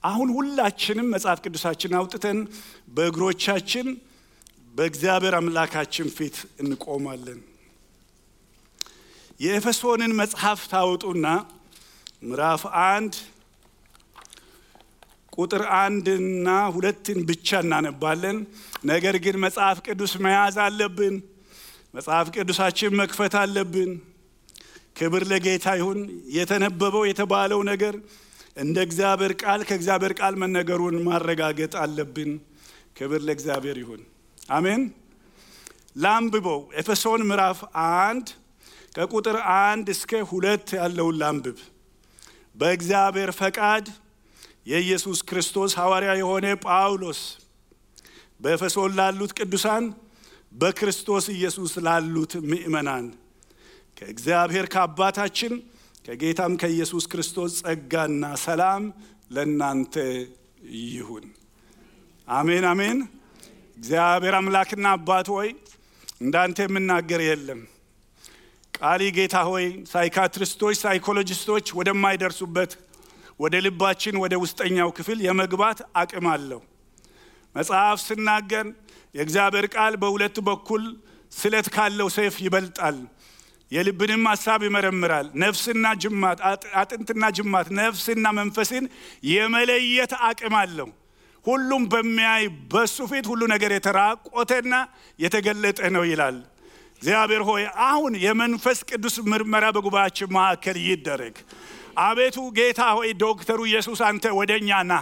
አሁን ሁላችንም መጽሐፍ ቅዱሳችንን አውጥተን በእግሮቻችን በእግዚአብሔር አምላካችን ፊት እንቆማለን። የኤፌሶንን መጽሐፍ ታውጡና ምዕራፍ 1 ቁጥር 1 እና 2 ብቻ እናነባለን። ነገር ግን መጽሐፍ ቅዱስ መያዝ አለብን። መጽሐፍ ቅዱሳችን መክፈት አለብን። ክብር ለጌታ ይሁን። የተነበበው የተባለው ነገር እንደ እግዚአብሔር ቃል ከእግዚአብሔር ቃል መነገሩን ማረጋገጥ አለብን። ክብር ለእግዚአብሔር ይሁን። አሜን። ላንብበው። ኤፌሶን ምዕራፍ 1 ከቁጥር 1 እስከ 2 ያለውን ላንብብ። በእግዚአብሔር ፈቃድ የኢየሱስ ክርስቶስ ሐዋርያ የሆነ ጳውሎስ በኤፌሶን ላሉት ቅዱሳን በክርስቶስ ኢየሱስ ላሉት ምእመናን ከእግዚአብሔር ከአባታችን ከጌታም ከኢየሱስ ክርስቶስ ጸጋና ሰላም ለእናንተ ይሁን። አሜን አሜን። እግዚአብሔር አምላክና አባት ሆይ እንዳንተ የምናገር የለም። ቃሊ ጌታ ሆይ ሳይካትሪስቶች ሳይኮሎጂስቶች ወደማይደርሱበት ወደ ልባችን ወደ ውስጠኛው ክፍል የመግባት አቅም አለው። መጽሐፍ ሲናገር የእግዚአብሔር ቃል በሁለት በኩል ስለት ካለው ሰይፍ ይበልጣል፣ የልብንም ሐሳብ ይመረምራል፣ ነፍስና ጅማት አጥንትና ጅማት ነፍስና መንፈስን የመለየት አቅም አለው። ሁሉም በሚያይ በሱ ፊት ሁሉ ነገር የተራቆተና የተገለጠ ነው ይላል። እግዚአብሔር ሆይ አሁን የመንፈስ ቅዱስ ምርመራ በጉባኤያችን መካከል ይደረግ። አቤቱ ጌታ ሆይ ዶክተሩ ኢየሱስ አንተ ወደኛ ና።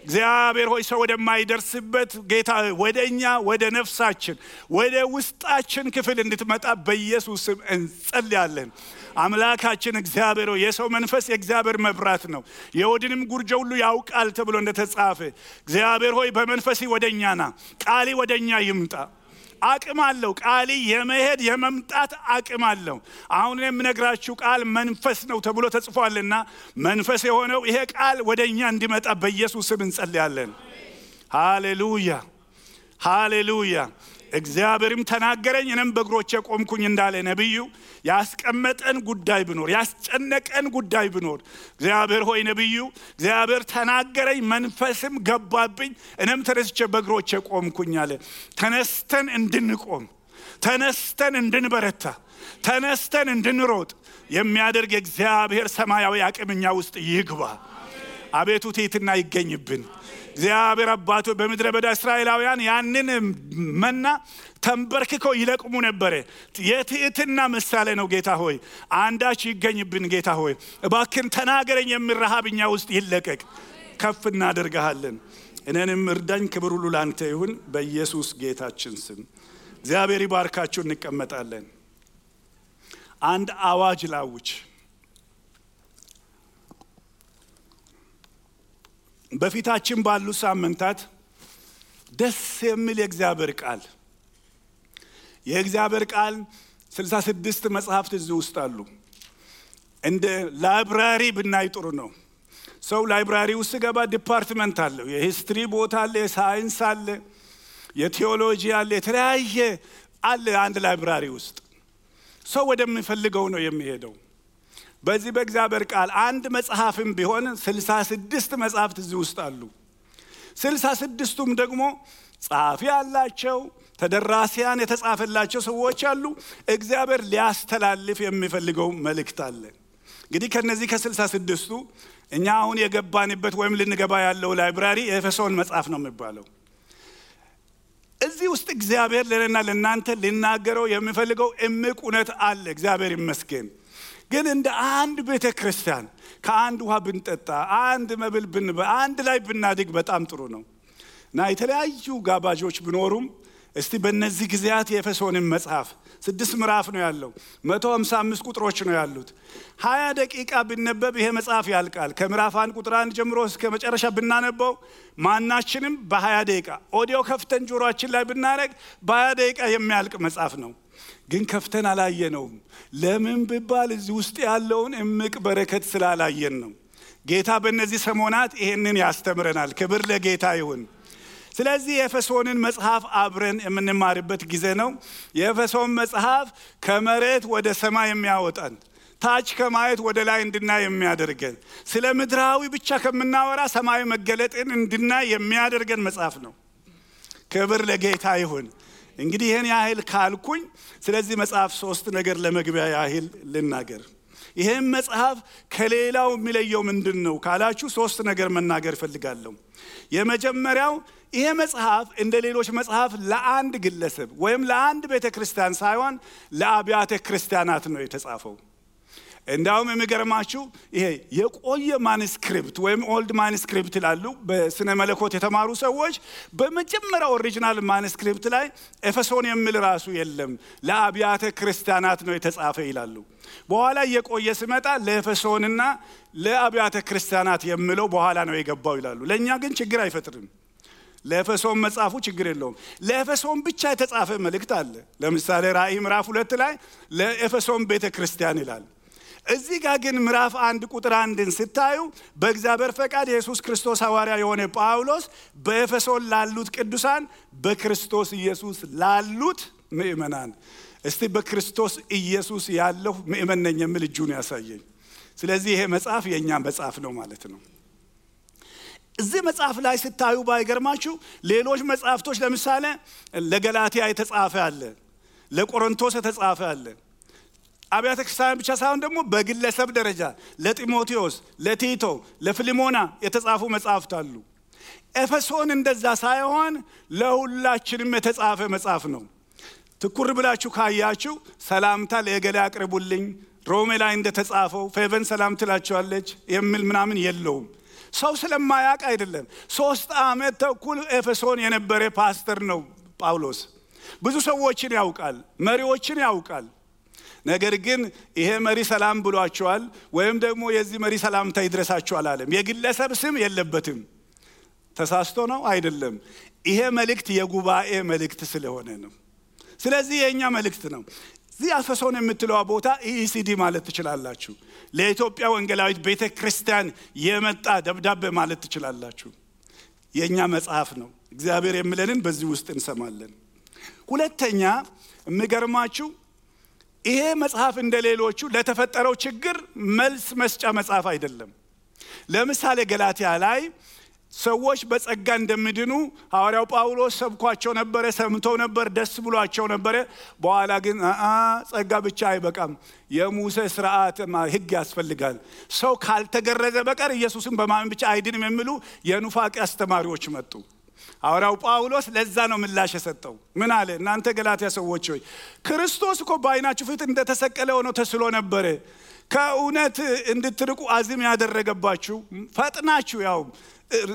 እግዚአብሔር ሆይ ሰው ወደማይደርስበት ጌታ ወደኛ ወደ ነፍሳችን ወደ ውስጣችን ክፍል እንድትመጣ በኢየሱስ ስም እንጸልያለን። አምላካችን እግዚአብሔር ሆይ የሰው መንፈስ የእግዚአብሔር መብራት ነው፣ የወድንም ጉርጆ ሁሉ ያውቃል ተብሎ እንደተጻፈ እግዚአብሔር ሆይ በመንፈስ ወደኛ ና። ቃሊ ወደኛ ይምጣ። አቅም አለው። ቃሊ የመሄድ የመምጣት አቅም አለው። አሁን የምነግራችሁ ቃል መንፈስ ነው ተብሎ ተጽፏልና መንፈስ የሆነው ይሄ ቃል ወደኛ እንዲመጣ በኢየሱስ ስም እንጸልያለን። ሃሌሉያ ሃሌሉያ። እግዚአብሔርም ተናገረኝ እኔም በእግሮቼ ቆምኩኝ እንዳለ ነብዩ ያስቀመጠን ጉዳይ ቢኖር ያስጨነቀን ጉዳይ ቢኖር እግዚአብሔር ሆይ ነብዩ እግዚአብሔር ተናገረኝ መንፈስም ገባብኝ እኔም ተነስቼ በእግሮቼ ቆምኩኝ አለ። ተነስተን እንድንቆም ተነስተን እንድንበረታ ተነስተን እንድንሮጥ የሚያደርግ እግዚአብሔር ሰማያዊ አቅምኛ ውስጥ ይግባ። አቤቱ ትሕትና ይገኝብን። እግዚአብሔር አባቱ በምድረ በዳ እስራኤላውያን ያንን መና ተንበርክከው ይለቅሙ ነበር። የትሕትና ምሳሌ ነው። ጌታ ሆይ አንዳች ይገኝብን። ጌታ ሆይ እባክን ተናገረኝ የሚል ረሃብኛ ውስጥ ይለቀቅ። ከፍ እናደርግሃለን። እኔንም እርዳኝ። ክብር ሁሉ ላንተ ይሁን በኢየሱስ ጌታችን ስም። እግዚአብሔር ይባርካችሁ። እንቀመጣለን። አንድ አዋጅ ላውጅ። በፊታችን ባሉ ሳምንታት ደስ የሚል የእግዚአብሔር ቃል 66 መጽሐፍት እዚህ ውስጥ አሉ። እንደ ላይብራሪ ብናይ ጥሩ ነው። ሰው ላይብራሪ ውስጥ ገባ ዲፓርትመንት አለው። የሂስትሪ ቦታ አለ፣ የሳይንስ አለ፣ የቴዎሎጂ አለ፣ የተለያየ አለ። አንድ ላይብራሪ ውስጥ ሰው ወደሚፈልገው ነው የሚሄደው። በዚህ በእግዚአብሔር ቃል አንድ መጽሐፍም ቢሆን 66 መጽሐፍት እዚህ ውስጥ አሉ። 66ቱም ደግሞ ጻፊ ያላቸው ተደራሲያን የተጻፈላቸው ሰዎች አሉ። እግዚአብሔር ሊያስተላልፍ የሚፈልገው መልእክት አለ። እንግዲህ ከነዚህ ከ66ቱ እኛ አሁን የገባንበት ወይም ልንገባ ያለው ላይብራሪ የኤፌሶን መጽሐፍ ነው የሚባለው። እዚህ ውስጥ እግዚአብሔር ለእኔና ለእናንተ ሊናገረው የሚፈልገው እምቅ እውነት አለ። እግዚአብሔር ይመስገን። ግን እንደ አንድ ቤተ ክርስቲያን ከአንድ ውሃ ብንጠጣ አንድ መብል ብንበላ አንድ ላይ ብናድግ በጣም ጥሩ ነው እና የተለያዩ ጋባዦች ቢኖሩም እስቲ በእነዚህ ጊዜያት የኤፌሶንን መጽሐፍ 6 ምዕራፍ ነው ያለው፣ 155 ቁጥሮች ነው ያሉት። 20 ደቂቃ ብንነበብ ይሄ መጽሐፍ ያልቃል። ከምዕራፍ 1 ቁጥር 1 ጀምሮ እስከ መጨረሻ ብናነበው ማናችንም በ20 ደቂቃ ኦዲዮ ከፍተን ጆሮአችን ላይ ብናረግ በ20 ደቂቃ የሚያልቅ መጽሐፍ ነው። ግን ከፍተን አላየነውም። ለምን ቢባል እዚህ ውስጥ ያለውን እምቅ በረከት ስላላየን ነው። ጌታ በእነዚህ ሰሞናት ይሄንን ያስተምረናል። ክብር ለጌታ ይሁን። ስለዚህ የኤፌሶንን መጽሐፍ አብረን የምንማርበት ጊዜ ነው። የኤፌሶን መጽሐፍ ከመሬት ወደ ሰማይ የሚያወጣን ታች ከማየት ወደ ላይ እንድናይ የሚያደርገን ስለ ምድራዊ ብቻ ከምናወራ ሰማያዊ መገለጥን እንድናይ የሚያደርገን መጽሐፍ ነው። ክብር ለጌታ ይሁን። እንግዲህ ይሄን ያህል ካልኩኝ ስለዚህ መጽሐፍ 3 ነገር ለመግቢያ ያህል ልናገር። ይሄን መጽሐፍ ከሌላው የሚለየው ምንድነው ካላችሁ 3 ነገር መናገር ፈልጋለሁ። የመጀመሪያው ይሄ መጽሐፍ እንደ ሌሎች መጽሐፍ ለአንድ ግለሰብ ወይም ለአንድ ቤተክርስቲያን ሳይሆን ለአብያተ ክርስቲያናት ነው የተጻፈው። እንዳውም የሚገርማችሁ ይሄ የቆየ ማኑስክሪፕት ወይም ኦልድ ማኑስክሪፕት ይላሉ በስነ መለኮት የተማሩ ሰዎች በመጀመሪያው ኦሪጂናል ማኑስክሪፕት ላይ ኤፌሶን የሚል ራሱ የለም ለአብያተ ክርስቲያናት ነው የተጻፈ ይላሉ። በኋላ የቆየ ሲመጣ ለኤፌሶንና ለአብያተ ክርስቲያናት የሚለው በኋላ ነው የገባው ይላሉ። ለኛ ግን ችግር አይፈጥርም። ለኤፌሶን መጽሐፉ ችግር የለውም። ለኤፌሶን ብቻ የተጻፈ መልእክት አለ። ለምሳሌ ራእይ ምዕራፍ 2 ላይ ለኤፌሶን ቤተክርስቲያን ይላል። እዚህ ጋር ግን ምዕራፍ 1 ቁጥር 1ን ስታዩ በእግዚአብሔር ፈቃድ ኢየሱስ ክርስቶስ ሐዋርያ የሆነ ጳውሎስ በኤፌሶን ላሉት ቅዱሳን በክርስቶስ ኢየሱስ ላሉት ምእመናን እስቲ በክርስቶስ ኢየሱስ ያለው ምእመን ነኝ የሚል እጁን ያሳየኝ። ስለዚህ ይሄ መጽሐፍ የኛ መጽሐፍ ነው ማለት ነው። እዚህ መጽሐፍ ላይ ስታዩ ባይገርማችሁ ሌሎች መጽሐፍቶች ለምሳሌ ለገላትያ የተጻፈ አለ፣ ለቆሮንቶስ የተጻፈ አለ። አብያተ ክርስቲያን ብቻ ሳይሆን ደግሞ በግለሰብ ደረጃ ለጢሞቴዎስ፣ ለቲቶ፣ ለፊሊሞና የተጻፉ መጽሐፍት አሉ። ኤፌሶን እንደዛ ሳይሆን ለሁላችንም የተጻፈ መጽሐፍ ነው። ትኩር ብላችሁ ካያችሁ ሰላምታ ለገሌ አቅርቡልኝ ሮሜ ላይ እንደተጻፈው ፌቨን ሰላም ትላችኋለች የሚል ምናምን የለውም። ሰው ስለማያውቅ አይደለም። 3 ዓመት ተኩል ኤፌሶን የነበረ ፓስተር ነው ጳውሎስ። ብዙ ሰዎችን ያውቃል፣ መሪዎችን ያውቃል። ነገር ግን ይሄ መሪ ሰላም ብሏቸዋል ወይም ደግሞ የዚህ መሪ ሰላምታ ይድረሳቸዋል አለም። የግለሰብ ስም የለበትም። ተሳስቶ ነው አይደለም። ይሄ መልእክት የጉባኤ መልእክት ስለሆነ ነው። ስለዚህ የኛ መልእክት ነው። እዚህ ኤፌሶን የምትለው ቦታ ኢሲዲ ማለት ትችላላችሁ። ለኢትዮጵያ ወንጌላዊት ቤተክርስቲያን የመጣ ደብዳቤ ማለት ትችላላችሁ። የኛ መጽሐፍ ነው። እግዚአብሔር የሚለንን በዚህ ውስጥ እንሰማለን። ሁለተኛ የሚገርማችሁ ይሄ መጽሐፍ እንደሌሎቹ ለተፈጠረው ችግር መልስ መስጫ መጽሐፍ አይደለም። ለምሳሌ ገላትያ ላይ ሰዎች በጸጋ እንደሚድኑ ሐዋርያው ጳውሎስ ሰብኳቸው ነበር፣ ሰምተው ነበር፣ ደስ ብሏቸው ነበር። በኋላ ግን ጸጋ ብቻ አይበቃም፣ የሙሴ ሥርዓት ሕግ ያስፈልጋል፣ ሰው ካልተገረዘ በቀር ኢየሱስን በማመን ብቻ አይድንም የሚሉ የኑፋቄ አስተማሪዎች መጡ። ሐዋርያው ጳውሎስ ለዛ ነው ምላሽ የሰጠው። ምን አለ? እናንተ ገላትያ ሰዎች ሆይ ክርስቶስ እኮ በዓይናችሁ ፊት እንደተሰቀለ ሆኖ ተስሎ ነበር። ከእውነት እንድትርቁ አዚም ያደረገባችሁ ፈጥናችሁ ያው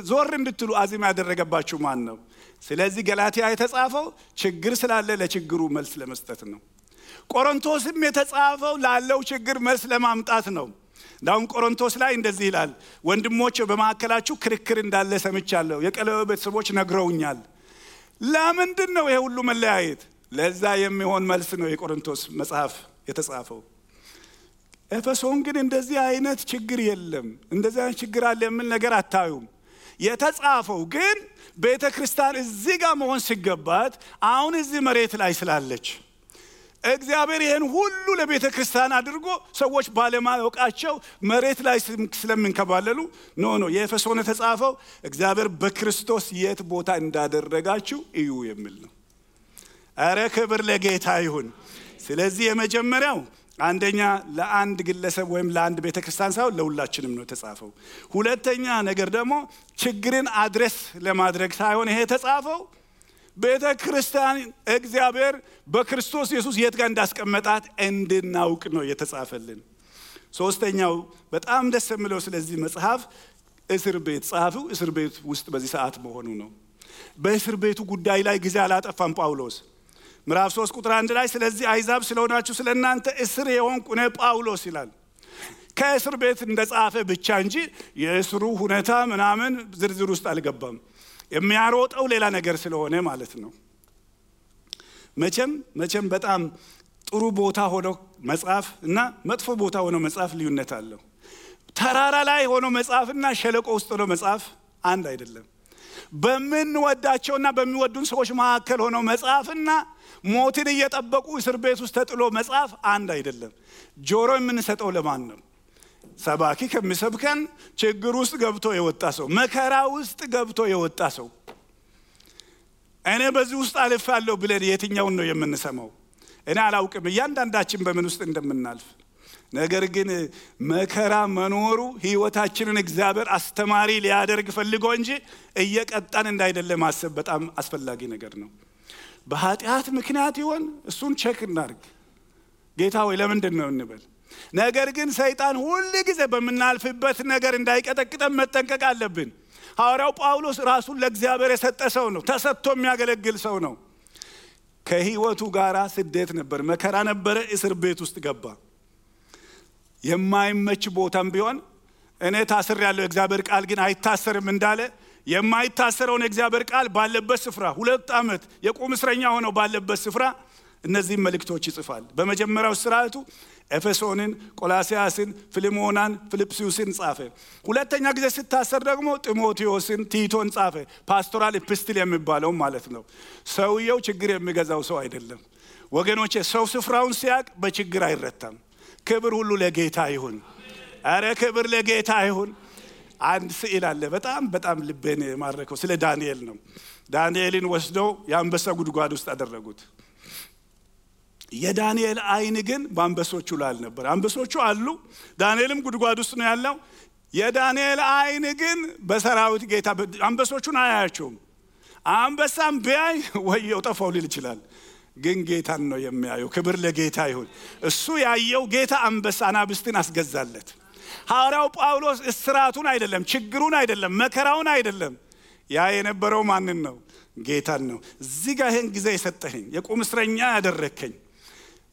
ዞር እንድትሉ አዚም ያደረገባችሁ ማን ነው? ስለዚህ ገላትያ የተጻፈው ችግር ስላለ ለችግሩ መልስ ለመስጠት ነው። ቆሮንቶስም የተጻፈው ላለው ችግር መልስ ለማምጣት ነው። ዳውን ቆሮንቶስ ላይ እንደዚህ ይላል፣ ወንድሞች በመሐከላችሁ ክርክር እንዳለ ሰምቻለሁ፣ የቀለበ ቤተሰቦች ነግረውኛል። ለምንድን ነው ይሄ ሁሉ መለያየት? ለዛ የሚሆን መልስ ነው የቆሮንቶስ መጽሐፍ የተጻፈው። ኤፌሶን ግን እንደዚህ አይነት ችግር የለም፣ እንደዚህ አይነት ችግር አለ የሚል ነገር አታዩም። የተጻፈው ግን ቤተክርስቲያን እዚህ ጋር መሆን ሲገባት አሁን እዚህ መሬት ላይ ስላለች እግዚአብሔር ይሄን ሁሉ ለቤተክርስቲያን አድርጎ ሰዎች ባለማወቃቸው መሬት ላይ ስለምንከባለሉ ኖ የኤፌሶን የተጻፈው እግዚአብሔር በክርስቶስ የት ቦታ እንዳደረጋችሁ እዩ የሚል ነው። አረ ክብር ለጌታ ይሁን። ስለዚህ የመጀመሪያው አንደኛ ለአንድ ግለሰብ ወይም ለአንድ ቤተክርስቲያን ሳይሆን ለሁላችንም ነው የተጻፈው። ሁለተኛ ነገር ደግሞ ችግርን አድረስ ለማድረግ ሳይሆን ይሄ የተጻፈው ቤተክርስቲያን እግዚአብሔር በክርስቶስ ኢየሱስ የት ጋር እንዳስቀመጣት እንድናውቅ ነው የተጻፈልን። ሶስተኛው በጣም ደስ የሚለው ስለዚህ መጽሐፍ እስር ቤት ጻፈው እስር ቤት ውስጥ በዚህ ሰዓት መሆኑ ነው። በእስር ቤቱ ጉዳይ ላይ ጊዜ አላጠፋም ጳውሎስ። ምዕራፍ 3 ቁጥር 1 ላይ ስለዚህ አይዛብ ስለሆናችሁ ስለናንተ እስር የሆንኩ እኔ ጳውሎስ ይላል። ከእስር ቤት እንደጻፈ ብቻ እንጂ የእስሩ ሁኔታ ምናምን ዝርዝር ውስጥ አልገባም። የሚያሮጠው ሌላ ነገር ስለሆነ ማለት ነው። መቼም በጣም ጥሩ ቦታ ሆኖ መጽሐፍ እና መጥፎ ቦታ ሆኖ መጽሐፍ ልዩነት አለው። ተራራ ላይ ሆኖ መጽሐፍና ሸለቆ ውስጥ ሆኖ መጽሐፍ አንድ አይደለም። በምንወዳቸውና በሚወዱን ሰዎች መካከል ሆኖ መጻፍና ሞትን እየጠበቁ እስር ቤት ውስጥ ተጥሎ መጻፍ አንድ አይደለም። ጆሮ የምንሰጠው ለማን ነው? ሰባኪ ከሚሰብከን ችግር ውስጥ ገብቶ የወጣ ሰው፣ መከራ ውስጥ ገብቶ የወጣ ሰው እኔ በዚህ ውስጥ አልፋለሁ ብለን የትኛውን ነው የምንሰማው? እኔ አላውቅም እያንዳንዳችን በምን ውስጥ እንደምናልፍ። ነገር ግን መከራ መኖሩ ህይወታችንን እግዚአብሔር አስተማሪ ሊያደርግ ፈልጎ እንጂ እየቀጣን እንዳይደለ ማሰብ በጣም አስፈላጊ ነገር ነው። በኃጢአት ምክንያት ይሆን እሱን ቼክ እናድርግ። ጌታ ሆይ ለምንድን ነው እንበል። ነገር ግን ሰይጣን ሁሉ ጊዜ በመናልፍበት ነገር እንዳይቀጠቅጠን መጠንቀቅ አለብን። ሐዋርያው ጳውሎስ ራሱን ለእግዚአብሔር የሰጠ ሰው ነው። ተሰጥቶ የሚያገለግል ሰው ነው። ከህይወቱ ጋራ ስደት ነበር፣ መከራ ነበረ፣ እስር ቤት ውስጥ ገባ። የማይመች ቦታም ቢሆን እኔ ታስሬያለሁ እግዚአብሔር ቃል ግን አይታሰርም እንዳለ የማይታሰረውን እግዚአብሔር ቃል ባለበት ስፍራ 2 ዓመት የቁም እስረኛ ሆኖ ባለበት ስፍራ እነዚህ መልእክቶች ይጽፋል። በመጀመሪያው ስርዓቱ ኤፌሶንን፣ ቆላሲያስን፣ ፊልሞናን፣ ፊልጵስዩስን ጻፈ። ሁለተኛ ጊዜ ሲታሰር ደግሞ ጢሞቴዎስን፣ ቲቶን ጻፈ። ፓስቶራል ኢፕስትል የሚባለው ማለት ነው። ሰውየው ችግር የሚገዛው ሰው አይደለም ወገኖቼ። ሰው ስፍራውን ሲያቅ በችግር አይረታም። ክብር ሁሉ ለጌታ ይሁን። አረ ክብር ለጌታ ይሁን። አንድ ስዕል አለ በጣም ልቤን ማረከው። ስለ ዳንኤል ነው። ዳንኤልን ወስደው የአንበሳ ጉድጓድ ውስጥ አደረጉት። የዳንኤል አይን ግን በአንበሶቹ ላይ አልነበር። አንበሶቹ አሉ፣ ዳንኤልም ጉድጓድ ውስጥ ነው ያለው። የዳንኤል አይን ግን በሰራዊት ጌታ አንበሶቹን አያያቸውም። አንበሳም ቢያይ ወየው ጠፋው ሊል ይችላል፣ ግን ጌታን ነው የሚያየው። ክብር ለጌታ ይሁን። እሱ ያየው ጌታ አንበሳ አናብስትን አስገዛለት። ሐዋርያው ጳውሎስ እስራቱን አይደለም፣ ችግሩን አይደለም፣ መከራውን አይደለም፣ ያ የነበረው ማንን ነው? ጌታን ነው። እዚህ ጋር ይሄን ጊዜ የሰጠኸኝ የቁም እስረኛ ያደረከኝ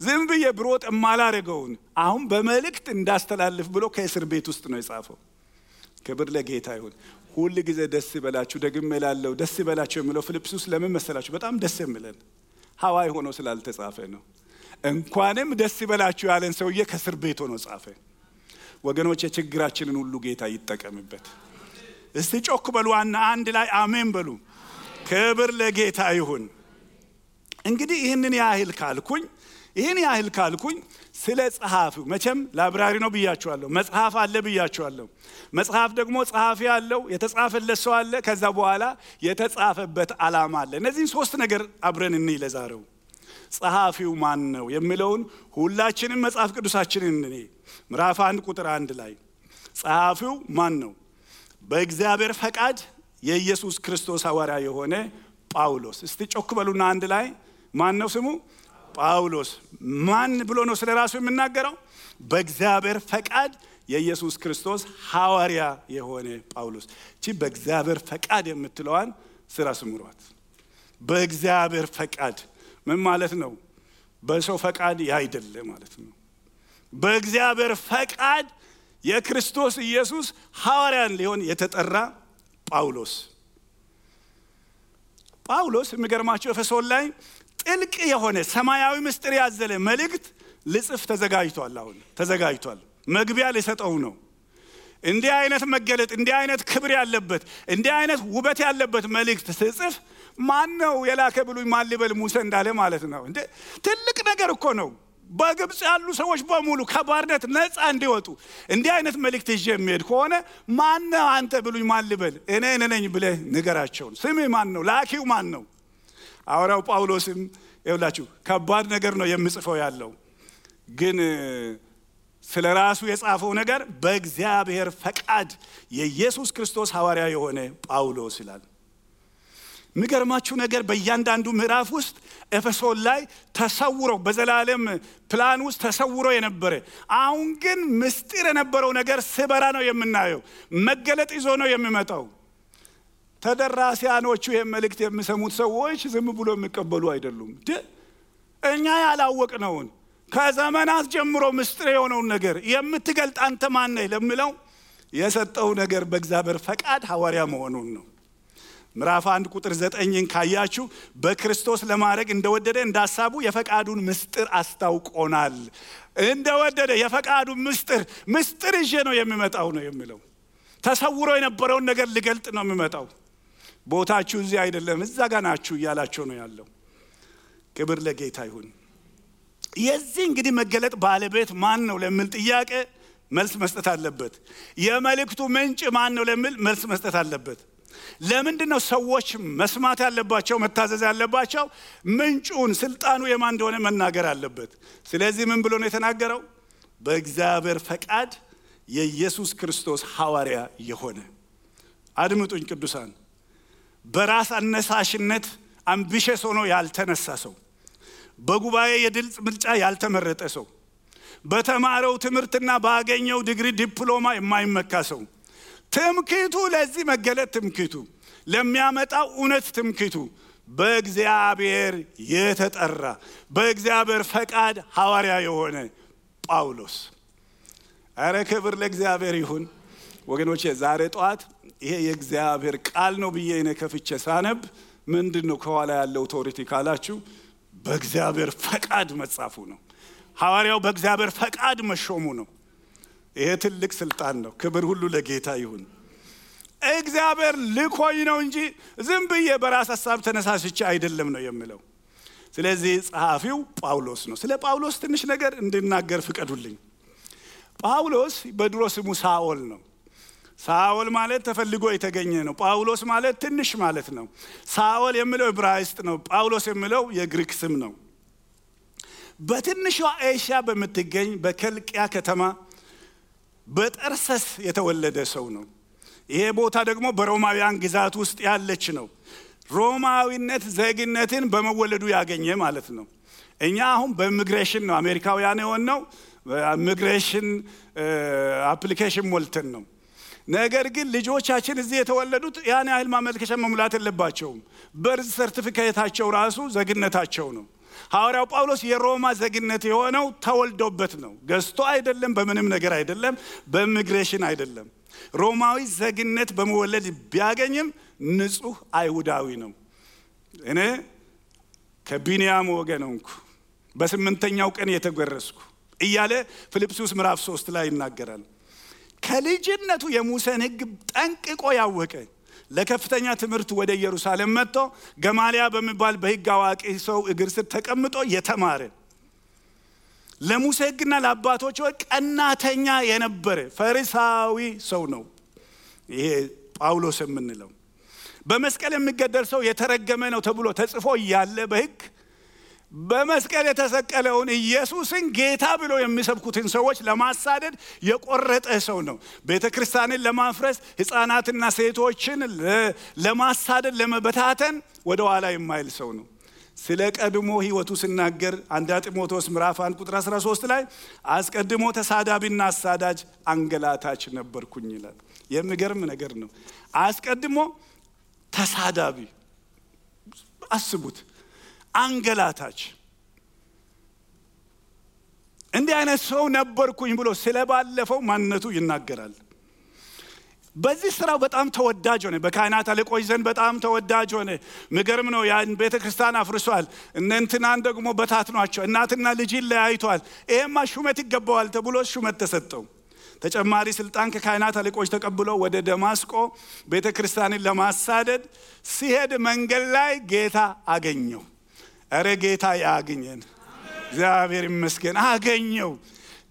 ዝም ብዬ ብሮጥ የማላደርገውን አሁን በመልእክት እንዳስተላልፍ ብሎ ከእስር ቤት ውስጥ ነው የጻፈው። ክብር ለጌታ ይሁን። ሁሉ ጊዜ ደስ ይበላችሁ ደግሜ እላለሁ፣ ደስ ይበላችሁ የሚለው ፊልጵስዩስ ለምን መሰላችሁ? በጣም ደስ የሚለን ሐዋይ ሆኖ ስላልተጻፈ ነው። እንኳንም ደስ ይበላችሁ ያለን ሰውዬ ከእስር ቤት ሆኖ ጻፈ። ወገኖች የችግራችንን ሁሉ ጌታ ይጠቀምበት። እስቲ ጮክ በሉና አንድ ላይ አሜን በሉ። ክብር ለጌታ ይሁን። እንግዲህ ይህን ያህል ካልኩኝ ስለ ጸሐፊው መቼም ላይብራሪ ነው ብያችኋለሁ። መጽሐፍ አለ ብያችኋለሁ። መጽሐፍ ደግሞ ጸሐፊ አለው፣ የተጻፈለት ሰው አለ፣ ከዛ በኋላ የተጻፈበት ዓላማ አለ። እነዚህን 3 ነገር አብረን እንይ ለዛሬው። ጸሐፊው ማን ነው የሚለውን ሁላችንም መጽሐፍ ቅዱሳችንን እንይ። ምዕራፍ 1 ቁጥር 1 ላይ ጸሐፊው ማን ነው? በእግዚአብሔር ፈቃድ የኢየሱስ ክርስቶስ ሐዋርያ የሆነ ጳውሎስ። እስቲ ጮክ በሉና አንድ ላይ ማን ነው ስሙ? ጳውሎስ። ማን ብሎ ነው ስለ ራሱ የሚናገረው? በእግዚአብሔር ፈቃድ የኢየሱስ ክርስቶስ ሐዋርያ የሆነ ጳውሎስ። እቺ በእግዚአብሔር ፈቃድ የምትለዋን ስራ ስምሯት። በእግዚአብሔር ፈቃድ ምን ማለት ነው? በሰው ፈቃድ ያይደለ ማለት ነው። በእግዚአብሔር ፈቃድ የክርስቶስ ኢየሱስ ሐዋርያን ሊሆን የተጠራ ጳውሎስ የሚገርማችሁ ኤፌሶን ላይ ጥልቅ የሆነ ሰማያዊ ምስጢር ያዘለ መልእክት ልጽፍ ተዘጋጅቷል። መግቢያ ሊሰጠው ነው። እንዲህ አይነት መገለጥ፣ እንዲህ አይነት ክብር ያለበት፣ እንዲህ አይነት ውበት ያለበት መልእክት ስጽፍ ማን ነው የላከ ብሉኝ ማን ሊበል ሙሴ እንዳለ ማለት ነው። እንዴ ትልቅ ነገር እኮ ነው። በግብጽ ያሉ ሰዎች በሙሉ ከባርነት ነፃ እንዲወጡ እንዲህ አይነት መልእክት ይዤ የሚሄድ ከሆነ ማን ነው አንተ ብሉኝ ማን ሊበል? እኔ ነኝ ብለህ ንገራቸው። ስሜ ማን ነው? ላኪው ማን ነው? ሐዋርያው ጳውሎስም ይኸውላችሁ ከባድ ነገር ነው የሚጽፈው ያለው፣ ግን ስለ ራሱ የጻፈው ነገር በእግዚአብሔር ፈቃድ የኢየሱስ ክርስቶስ ሐዋርያ የሆነ ጳውሎስ ይላል። የሚገርማችሁ ነገር በእያንዳንዱ ምዕራፍ ውስጥ ኤፌሶን ላይ ተሰውሮ በዘላለም ፕላን ውስጥ ተሰውሮ የነበረ አሁን ግን ምስጢር የነበረው ነገር ስበራ ነው የምናየው። መገለጥ ይዞ ነው የሚመጣው። ተደራሲያኖቹ የመልእክት የሚሰሙት ሰዎች ዝም ብሎ የሚቀበሉ አይደሉም። እኛ ያላወቅነውን ከዘመናት ጀምሮ ምስጢር የሆነውን ነገር የምትገልጥ አንተ ማን ነህ ለሚለው የሰጠው ነገር በእግዚአብሔር ፈቃድ ሐዋርያ መሆኑን ነው። ምዕራፍ 1 ቁጥር 9ን ካያችሁ በክርስቶስ ለማድረግ እንደወደደ እንዳሳቡ የፈቃዱን ምስጢር አስታውቆናል። እንደወደደ የፈቃዱን ምስጢር ይዤ ነው የሚመጣው ነው የሚለው። ተሰውሮ የነበረውን ነገር ሊገልጥ ነው የሚመጣው። ቦታችሁ እዚህ አይደለም እዛ ጋር ናችሁ እያላችሁ ነው ያለው። ክብር ለጌታ ይሁን። የዚህ እንግዲህ መገለጥ ባለቤት ማን ነው ለሚል ጥያቄ መልስ መስጠት አለበት። የመልእክቱ ምንጭ ማን ነው ለሚል መልስ መስጠት አለበት። ለምንድነው ሰዎች መስማት ያለባቸው መታዘዝ ያለባቸው? ምንጩን ስልጣኑ የማን እንደሆነ መናገር አለበት። ስለዚህ ምን ብሎ ነው የተናገረው? በእግዚአብሔር ፈቃድ የኢየሱስ ክርስቶስ ሐዋርያ የሆነ። አድምጡኝ ቅዱሳን፣ በራስ አነሳሽነት አምቢሽስ ሆኖ ያልተነሳ ሰው፣ በጉባኤ የድል ምርጫ ያልተመረጠ ሰው፣ በተማረው ትምህርትና ባገኘው ዲግሪ ዲፕሎማ የማይመካ ሰው፣ ትምክህቱ ለዚህ መገለጥ ትምክህቱ ለሚያመጣው እውነት ትምክህቱ በእግዚአብሔር የተጠራ በእግዚአብሔር ፈቃድ ሐዋርያ የሆነ ጳውሎስ። አረ ክብር ለእግዚአብሔር ይሁን ወገኖቼ። ዛሬ ጧት ይሄ የእግዚአብሔር ቃል ነው ብዬ እኔ ከፍቼ ሳነብ ምንድነው ከኋላ ያለው ኦቶሪቲ ካላችሁ በእግዚአብሔር ፈቃድ መጻፉ ነው። ሐዋርያው በእግዚአብሔር ፈቃድ መሾሙ ነው። ይሄ ትልቅ ስልጣን ነው። ክብር ሁሉ ለጌታ ይሁን። እግዚአብሔር ልኮኝ ነው እንጂ ዝም ብዬ በራስ ሐሳብ ተነሳስቼ አይደለም ነው የሚለው። ስለዚህ ጸሐፊው ጳውሎስ ነው። ስለ ጳውሎስ ትንሽ ነገር እንድናገር ፍቀዱልኝ። ጳውሎስ በድሮ ስሙ ሳኦል ነው። ሳኦል ማለት ተፈልጎ የተገኘ ነው። ጳውሎስ ማለት ትንሽ ማለት ነው። ሳኦል የሚለው ዕብራይስጥ ነው። ጳውሎስ የሚለው የግሪክ ስም ነው። በትንሿ ኤሽያ በምትገኝ በከልቅያ ከተማ በጠርሰስ የተወለደ ሰው ነው። ይሄ ቦታ ደግሞ በሮማውያን ግዛት ውስጥ ያለች ነው። ሮማዊነት ዜግነትን በመወለዱ ያገኘ ማለት ነው። እኛ አሁን በኢሚግሬሽን ነው አሜሪካውያን የሆነው፣ ኢሚግሬሽን አፕሊኬሽን ሞልተን ነው። ነገር ግን ልጆቻችን እዚህ የተወለዱት ያን ያህል ማመልከቻ መሙላት የለባቸውም። በርዝ ሰርቲፊኬታቸው ራሱ ዜግነታቸው ነው። ሐዋርያው ጳውሎስ የሮማ ዜግነት የሆነው ተወልዶበት ነው። ገዝቶ አይደለም፣ በምንም ነገር አይደለም፣ በኢሚግሬሽን አይደለም። ሮማዊ ዜግነት በመወለድ ቢያገኝም ንጹህ አይሁዳዊ ነው። እኔ ከቢንያም ወገን ነኝ፣ በ8ኛው ቀን የተገረዝኩ እያለ ፊልጵስዩስ ምዕራፍ 3 ላይ ይናገራል። ከልጅነቱ የሙሴን ሕግ ጠንቅቆ ያወቀ ለከፍተኛ ትምህርት ወደ ኢየሩሳሌም መጥቶ ገማልያ በሚባል በሕግ አዋቂ ሰው እግር ስር ተቀምጦ የተማረ ለሙሴ ሕግና ለአባቶቹ ቀናተኛ የነበረ ፈሪሳዊ ሰው ነው። ይሄ ጳውሎስ የምንለው በመስቀል የሚገደል ሰው የተረገመ ነው ተብሎ ተጽፎ እያለ በሕግ በመስቀል የተሰቀለውን ኢየሱስን ጌታ ብሎ የሚሰብኩትን ሰዎች ለማሳደድ የቆረጠ ሰው ነው። ቤተክርስቲያንን ለማፍረስ ሕፃናትና ሴቶችን ለማሳደድ ለመበታተን ወደ ኋላ የማይል ሰው ነው። ስለ ቀድሞ ሕይወቱ ሲናገር አንደኛ ጢሞቴዎስ ምዕራፍ 1 ቁጥር 13 ላይ አስቀድሞ ተሳዳቢና አሳዳጅ አንገላታች ነበርኩኝ ይላል። የሚገርም ነገር ነው። አስቀድሞ ተሳዳቢ፣ አስቡት፣ አንገላታች፣ እንዲህ አይነት ሰው ነበርኩኝ ብሎ ስለባለፈው ማንነቱ ይናገራል። በዚህ ስራው በጣም ተወዳጅ ሆነ። በካህናት አለቆች ዘንድ በጣም ተወዳጅ ሆነ። ምገርም ነው። ያን ቤተክርስቲያን አፍርሷል። እነንትናን ደግሞ በታትኗቸው እናትና ልጅን ለያይቷል። ይሄማ ሹመት ይገባዋል ተብሎ ሹመት ተሰጠው። ተጨማሪ ስልጣን ከካህናት አለቆች ተቀብሎ ወደ ደማስቆ ቤተክርስቲያንን ለማሳደድ ሲሄድ መንገድ ላይ ጌታ አገኘው። አረ ጌታ ያገኘን፣ እግዚአብሔር ይመስገን፣ አገኘው።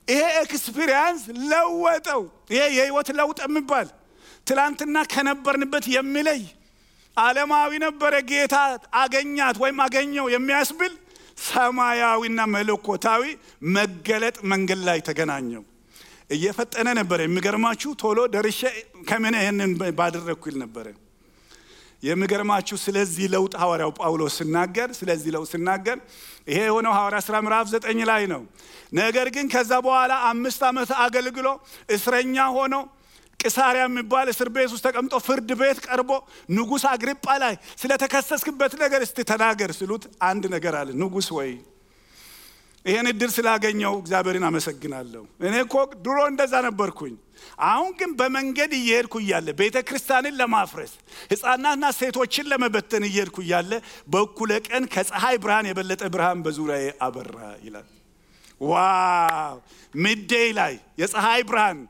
ይሄ ኤክስፒሪየንስ ለወጠው። ይሄ የህይወት ለውጥ የሚባል ትላንትና ከነበርንበት የሚለይ ዓለማዊ ነበረ። ጌታ አገኛት ወይም አገኘው የሚያስብል ሰማያዊና መለኮታዊ መገለጥ መንገድ ላይ ተገናኘው። እየፈጠነ ነበር። የሚገርማችሁ ቶሎ ደርሼ ከምን ይሄንን ባደረኩ ይል ነበር። የሚገርማችሁ ስለዚህ ለውጥ ሐዋርያው ጳውሎስ ሲናገር ይሄ የሆነው ሐዋርያ ሥራ ምዕራፍ 9 ላይ ነው። ነገር ግን ከዛ በኋላ 5 ዓመት አገልግሎ እስረኛ ሆኖ ቂሳሪያ የሚባል እስር ቤት ውስጥ ተቀምጦ ፍርድ ቤት ቀርቦ ንጉሥ አግሪጳ ላይ ስለተከሰስክበት ነገር እስቲ ተናገር ሲሉት አንድ ነገር አለ። ንጉሥ ወይ ይሄን እድል ስላገኘው እግዚአብሔርን አመሰግናለሁ። እኔ እኮ ድሮ እንደዛ ነበርኩኝ። አሁን ግን በመንገድ እየሄድኩ እያለ ቤተክርስቲያንን ለማፍረስ ሕፃናትና ሴቶችን ለመበተን እየሄድኩ እያለ በእኩለ ቀን ከፀሐይ ብርሃን የበለጠ ብርሃን በዙሪያዬ አበራ ይላል። ዋው! ሚድዴይ ላይ የፀሐይ ብርሃን፣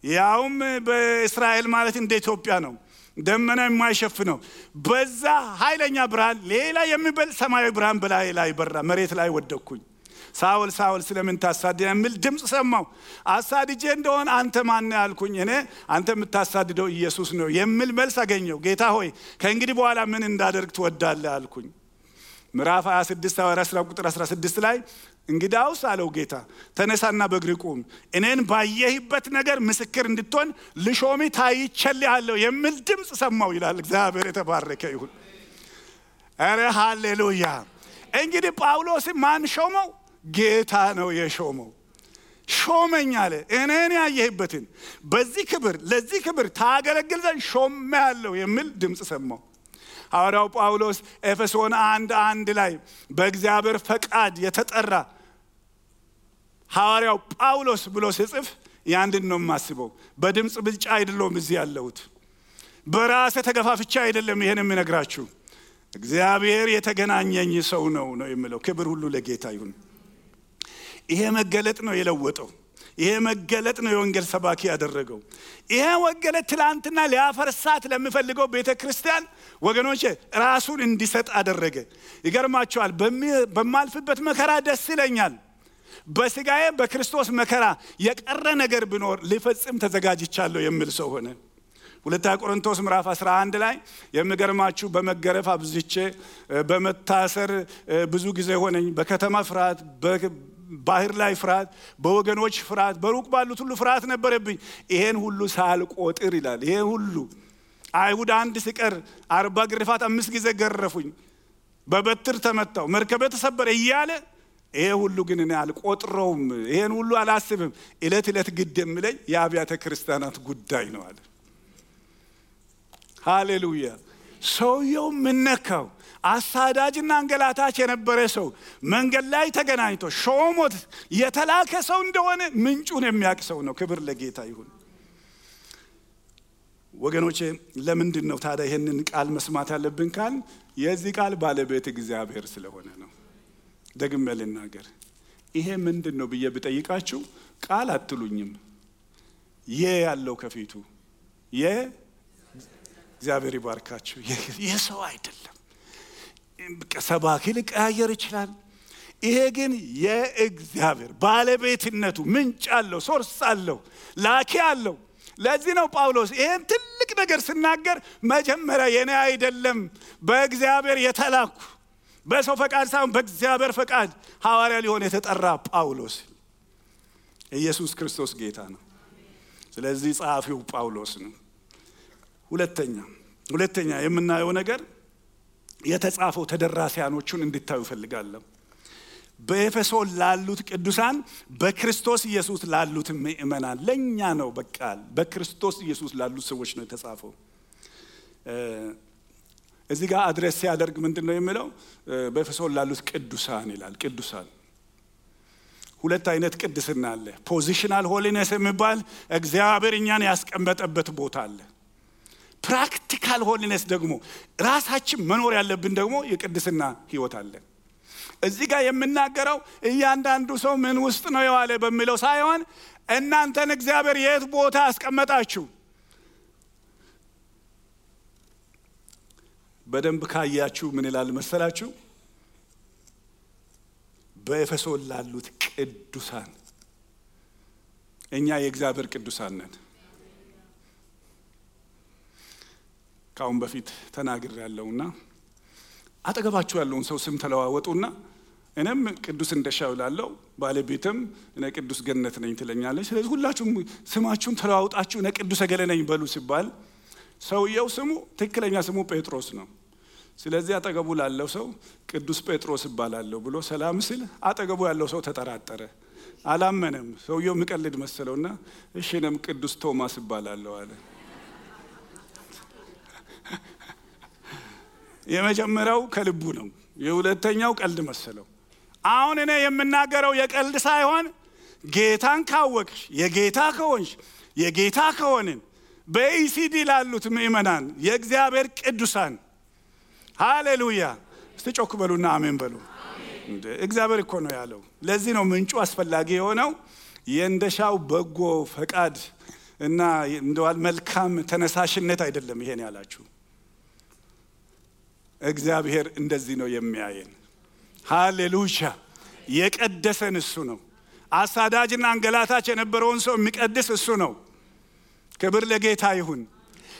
ያውም በእስራኤል ማለት እንደ ኢትዮጵያ ነው። ደመና የማይሸፍነው በዛ ኃይለኛ ብርሃን ሌላ የሚበልጥ ሰማያዊ ብርሃን በላይ ላይ በራ። መሬት ላይ ወደቅኩኝ። ሳውል ሳውል ስለምን ታሳድደኝ የሚል ድምጽ ሰማሁ። አሳድጄ እንደሆነ አንተ ማን ነህ አልኩኝ። እኔ አንተ የምታሳድደው ኢየሱስ ነው የሚል መልስ አገኘሁ። ጌታ ሆይ ከእንግዲህ በኋላ ምን እንዳደርግ ትወዳለህ አልኩኝ። ምዕራፍ 26 ሐዋርያት ቁጥር 16 ላይ እንግዳውስ አለው ጌታ ተነሳና በእግር ቁም፣ እኔን ባየህበት ነገር ምስክር እንድትሆን ልሾሚ ታይቼልሃለሁ የሚል ድምጽ ሰማሁ ይላል። እግዚአብሔር የተባረከ ይሁን። አረ ሃሌሉያ። እንግዲህ ጳውሎስ ማን ሾመው? ጌታ ነው የሾመው። ሾመኝ አለ። እኔን ያየህበትን በዚህ ክብር ለዚህ ክብር ታገለግል ዘንድ ሾሜሃለሁ የሚል ድምጽ ሰማሁ። ሐዋርያው ጳውሎስ ኤፌሶን 1:1 ላይ በእግዚአብሔር ፈቃድ የተጠራ ሐዋርያው ጳውሎስ ብሎ ሲጽፍ ያንድን ነው የማስበው። በድምጽ ብልጫ አይደለም እዚህ ያለሁት፣ በራሴ ተገፋፍቻ አይደለም ይሄን የምነግራችሁ። እግዚአብሔር የተገናኘኝ ሰው ነው የሚለው። ክብር ሁሉ ለጌታ ይሁን። ይሄ መገለጥ ነው የለወጠው። ይሄ መገለጥ ነው የወንጌል ሰባኪ ያደረገው። ይሄ ወንጌል ትላንትና ሊያፈርሳት ለሚፈልገው ቤተክርስቲያን ወገኖቼ ራሱን እንዲሰጥ አደረገ። ይገርማችኋል። በማልፍበት መከራ ደስ ይለኛል፣ በስጋዬ በክርስቶስ መከራ የቀረ ነገር ቢኖር ሊፈጽም ተዘጋጅቻለሁ የሚል ሰው ሆነ። ሁለተኛ ቆሮንቶስ ምዕራፍ 11 ላይ የሚገርማችሁ በመገረፍ አብዝቼ በመታሰር ብዙ ጊዜ ሆነኝ፣ በከተማ ፍርሃት፣ ባህር ላይ ፍርሃት፣ በወገኖች ፍርሃት፣ በሩቅ ባሉት ሁሉ ፍርሃት ነበረብኝ። ይሄን ሁሉ ሳልቆጥር ይላል። ይሄ ሁሉ አይሁድ አንድ ሲቀር 40 ግርፋት 5 ጊዜ ገረፉኝ፣ በበትር ተመታው፣ መርከበ ተሰበረ እያለ ይሄ ሁሉ ግን እኔ አልቆጥረውም፣ ይሄን ሁሉ አላስብም። እለት እለት ግድ የሚለኝ የአብያተ ክርስቲያናት ጉዳይ ነው አለ። ሃሌሉያ። ሰውየው ምነካው? አሳዳጅና አንገላታች የነበረ ሰው መንገድ ላይ ተገናኝቶ ሾሞት የተላከ ሰው እንደሆነ ምንጩን የሚያውቅ ሰው ነው። ክብር ለጌታ ይሁን። ወገኖቼ ለምንድን ነው ታዲያ ይሄንን ቃል መስማት ያለብን ካል የዚህ ቃል ባለቤት እግዚአብሔር ስለሆነ ነው። ደግሜ ልናገር። ይሄ ምንድን ነው ብዬ ብጠይቃችሁ ቃል አትሉኝም። ያለው ከፊቱ እግዚአብሔር ይባርካችሁ። የሰው አይደለም። ሰባኪ ሊቀያየር ይችላል። ይሄ ግን የእግዚአብሔር ባለቤትነቱ ምንጭ አለው፣ ሶርስ አለው፣ ላኪ አለው። ለዚህ ነው ጳውሎስ ይሄን ትልቅ ነገር ሲናገር መጀመሪያ የኔ አይደለም በእግዚአብሔር የተላኩ በሰው ፈቃድ ሳይሆን በእግዚአብሔር ፈቃድ ሐዋርያ ሊሆን የተጠራ ጳውሎስ። ኢየሱስ ክርስቶስ ጌታ ነው። ስለዚህ ጸሐፊው ጳውሎስ ነው። ሁለተኛ የምናየው ነገር የተጻፈው ተደራሲያኖቹን እንድታዩ ፈልጋለሁ። በኤፌሶን ላሉት ቅዱሳን በክርስቶስ ኢየሱስ ላሉት ምእመናን ለኛ ነው። በቃ በክርስቶስ ኢየሱስ ላሉት ሰዎች ነው የተጻፈው። እዚህ ጋር አድሬስ ሲያደርግ ምንድነው የሚለው? በኤፌሶን ላሉት ቅዱሳን ይላል። ቅዱሳን ሁለት አይነት ቅድስና አለ። ፖዚሽናል ሆሊነስ የሚባል እግዚአብሔር እኛን ያስቀመጠበት ቦታ አለ። ፕራክቲካል ሆሊነስ ደግሞ ራሳችን መኖር ያለብን ደግሞ የቅድስና ህይወት አለ። እዚህ ጋር የምናገረው እያንዳንዱ ሰው ምን ውስጥ ነው የዋለ በሚለው ሳይሆን እናንተን እግዚአብሔር የት ቦታ አስቀመጣችሁ በደንብ ካያችሁ ምን ይላል መሰላችሁ? በኤፌሶን ላሉት ቅዱሳን። እኛ የእግዚአብሔር ቅዱሳን ነን። ካሁን በፊት ተናግር ያለውና አጠገባችሁ ያለውን ሰው ስም ተለዋወጡና እኔም ቅዱስ እንደሻው ላለው ባለቤትም እኔ ቅዱስ ገነት ነኝ ትለኛለች። ስለዚህ ሁላችሁም ስማችሁን ተለዋውጣችሁ እኔ ቅዱስ ገለ ነኝ በሉ ሲባል ሰውየው ስሙ ትክክለኛ ስሙ ጴጥሮስ ነው። ስለዚህ አጠገቡ ላለው ሰው ቅዱስ ጴጥሮስ ይባላል ብሎ ሰላም ሲል አጠገቡ ያለው ሰው ተጠራጠረ፣ አላመነም። ሰውየው ምቀልድ መሰለውና እሺ እኔም ቅዱስ ቶማስ ይባላለሁ አለ። የመጀመሪያው ከልቡ ነው፣ የሁለተኛው ቀልድ መሰለው። አሁን እኔ የምናገረው የቀልድ ሳይሆን ጌታን ካወቅሽ የጌታ ከሆንሽ የጌታ ከሆንን በኢሲዲ ላሉት ምእመናን የእግዚአብሔር ቅዱሳን ሃሌሉያ። እስቲ ጮክ በሉና አሜን በሉ። እግዚአብሔር እኮ ነው ያለው። ለዚህ ነው ምንጩ አስፈላጊ የሆነው። የእንደሻው በጎ ፈቃድ እና እንደዋል መልካም ተነሳሽነት አይደለም ይሄን ያላችሁ። እግዚአብሔር እንደዚህ ነው የሚያየን። ሃሌሉያ! የቀደሰን እሱ ነው። አሳዳጅና አንገላታች የነበረውን ሰው የሚቀድስ እሱ ነው። ክብር ለጌታ ይሁን።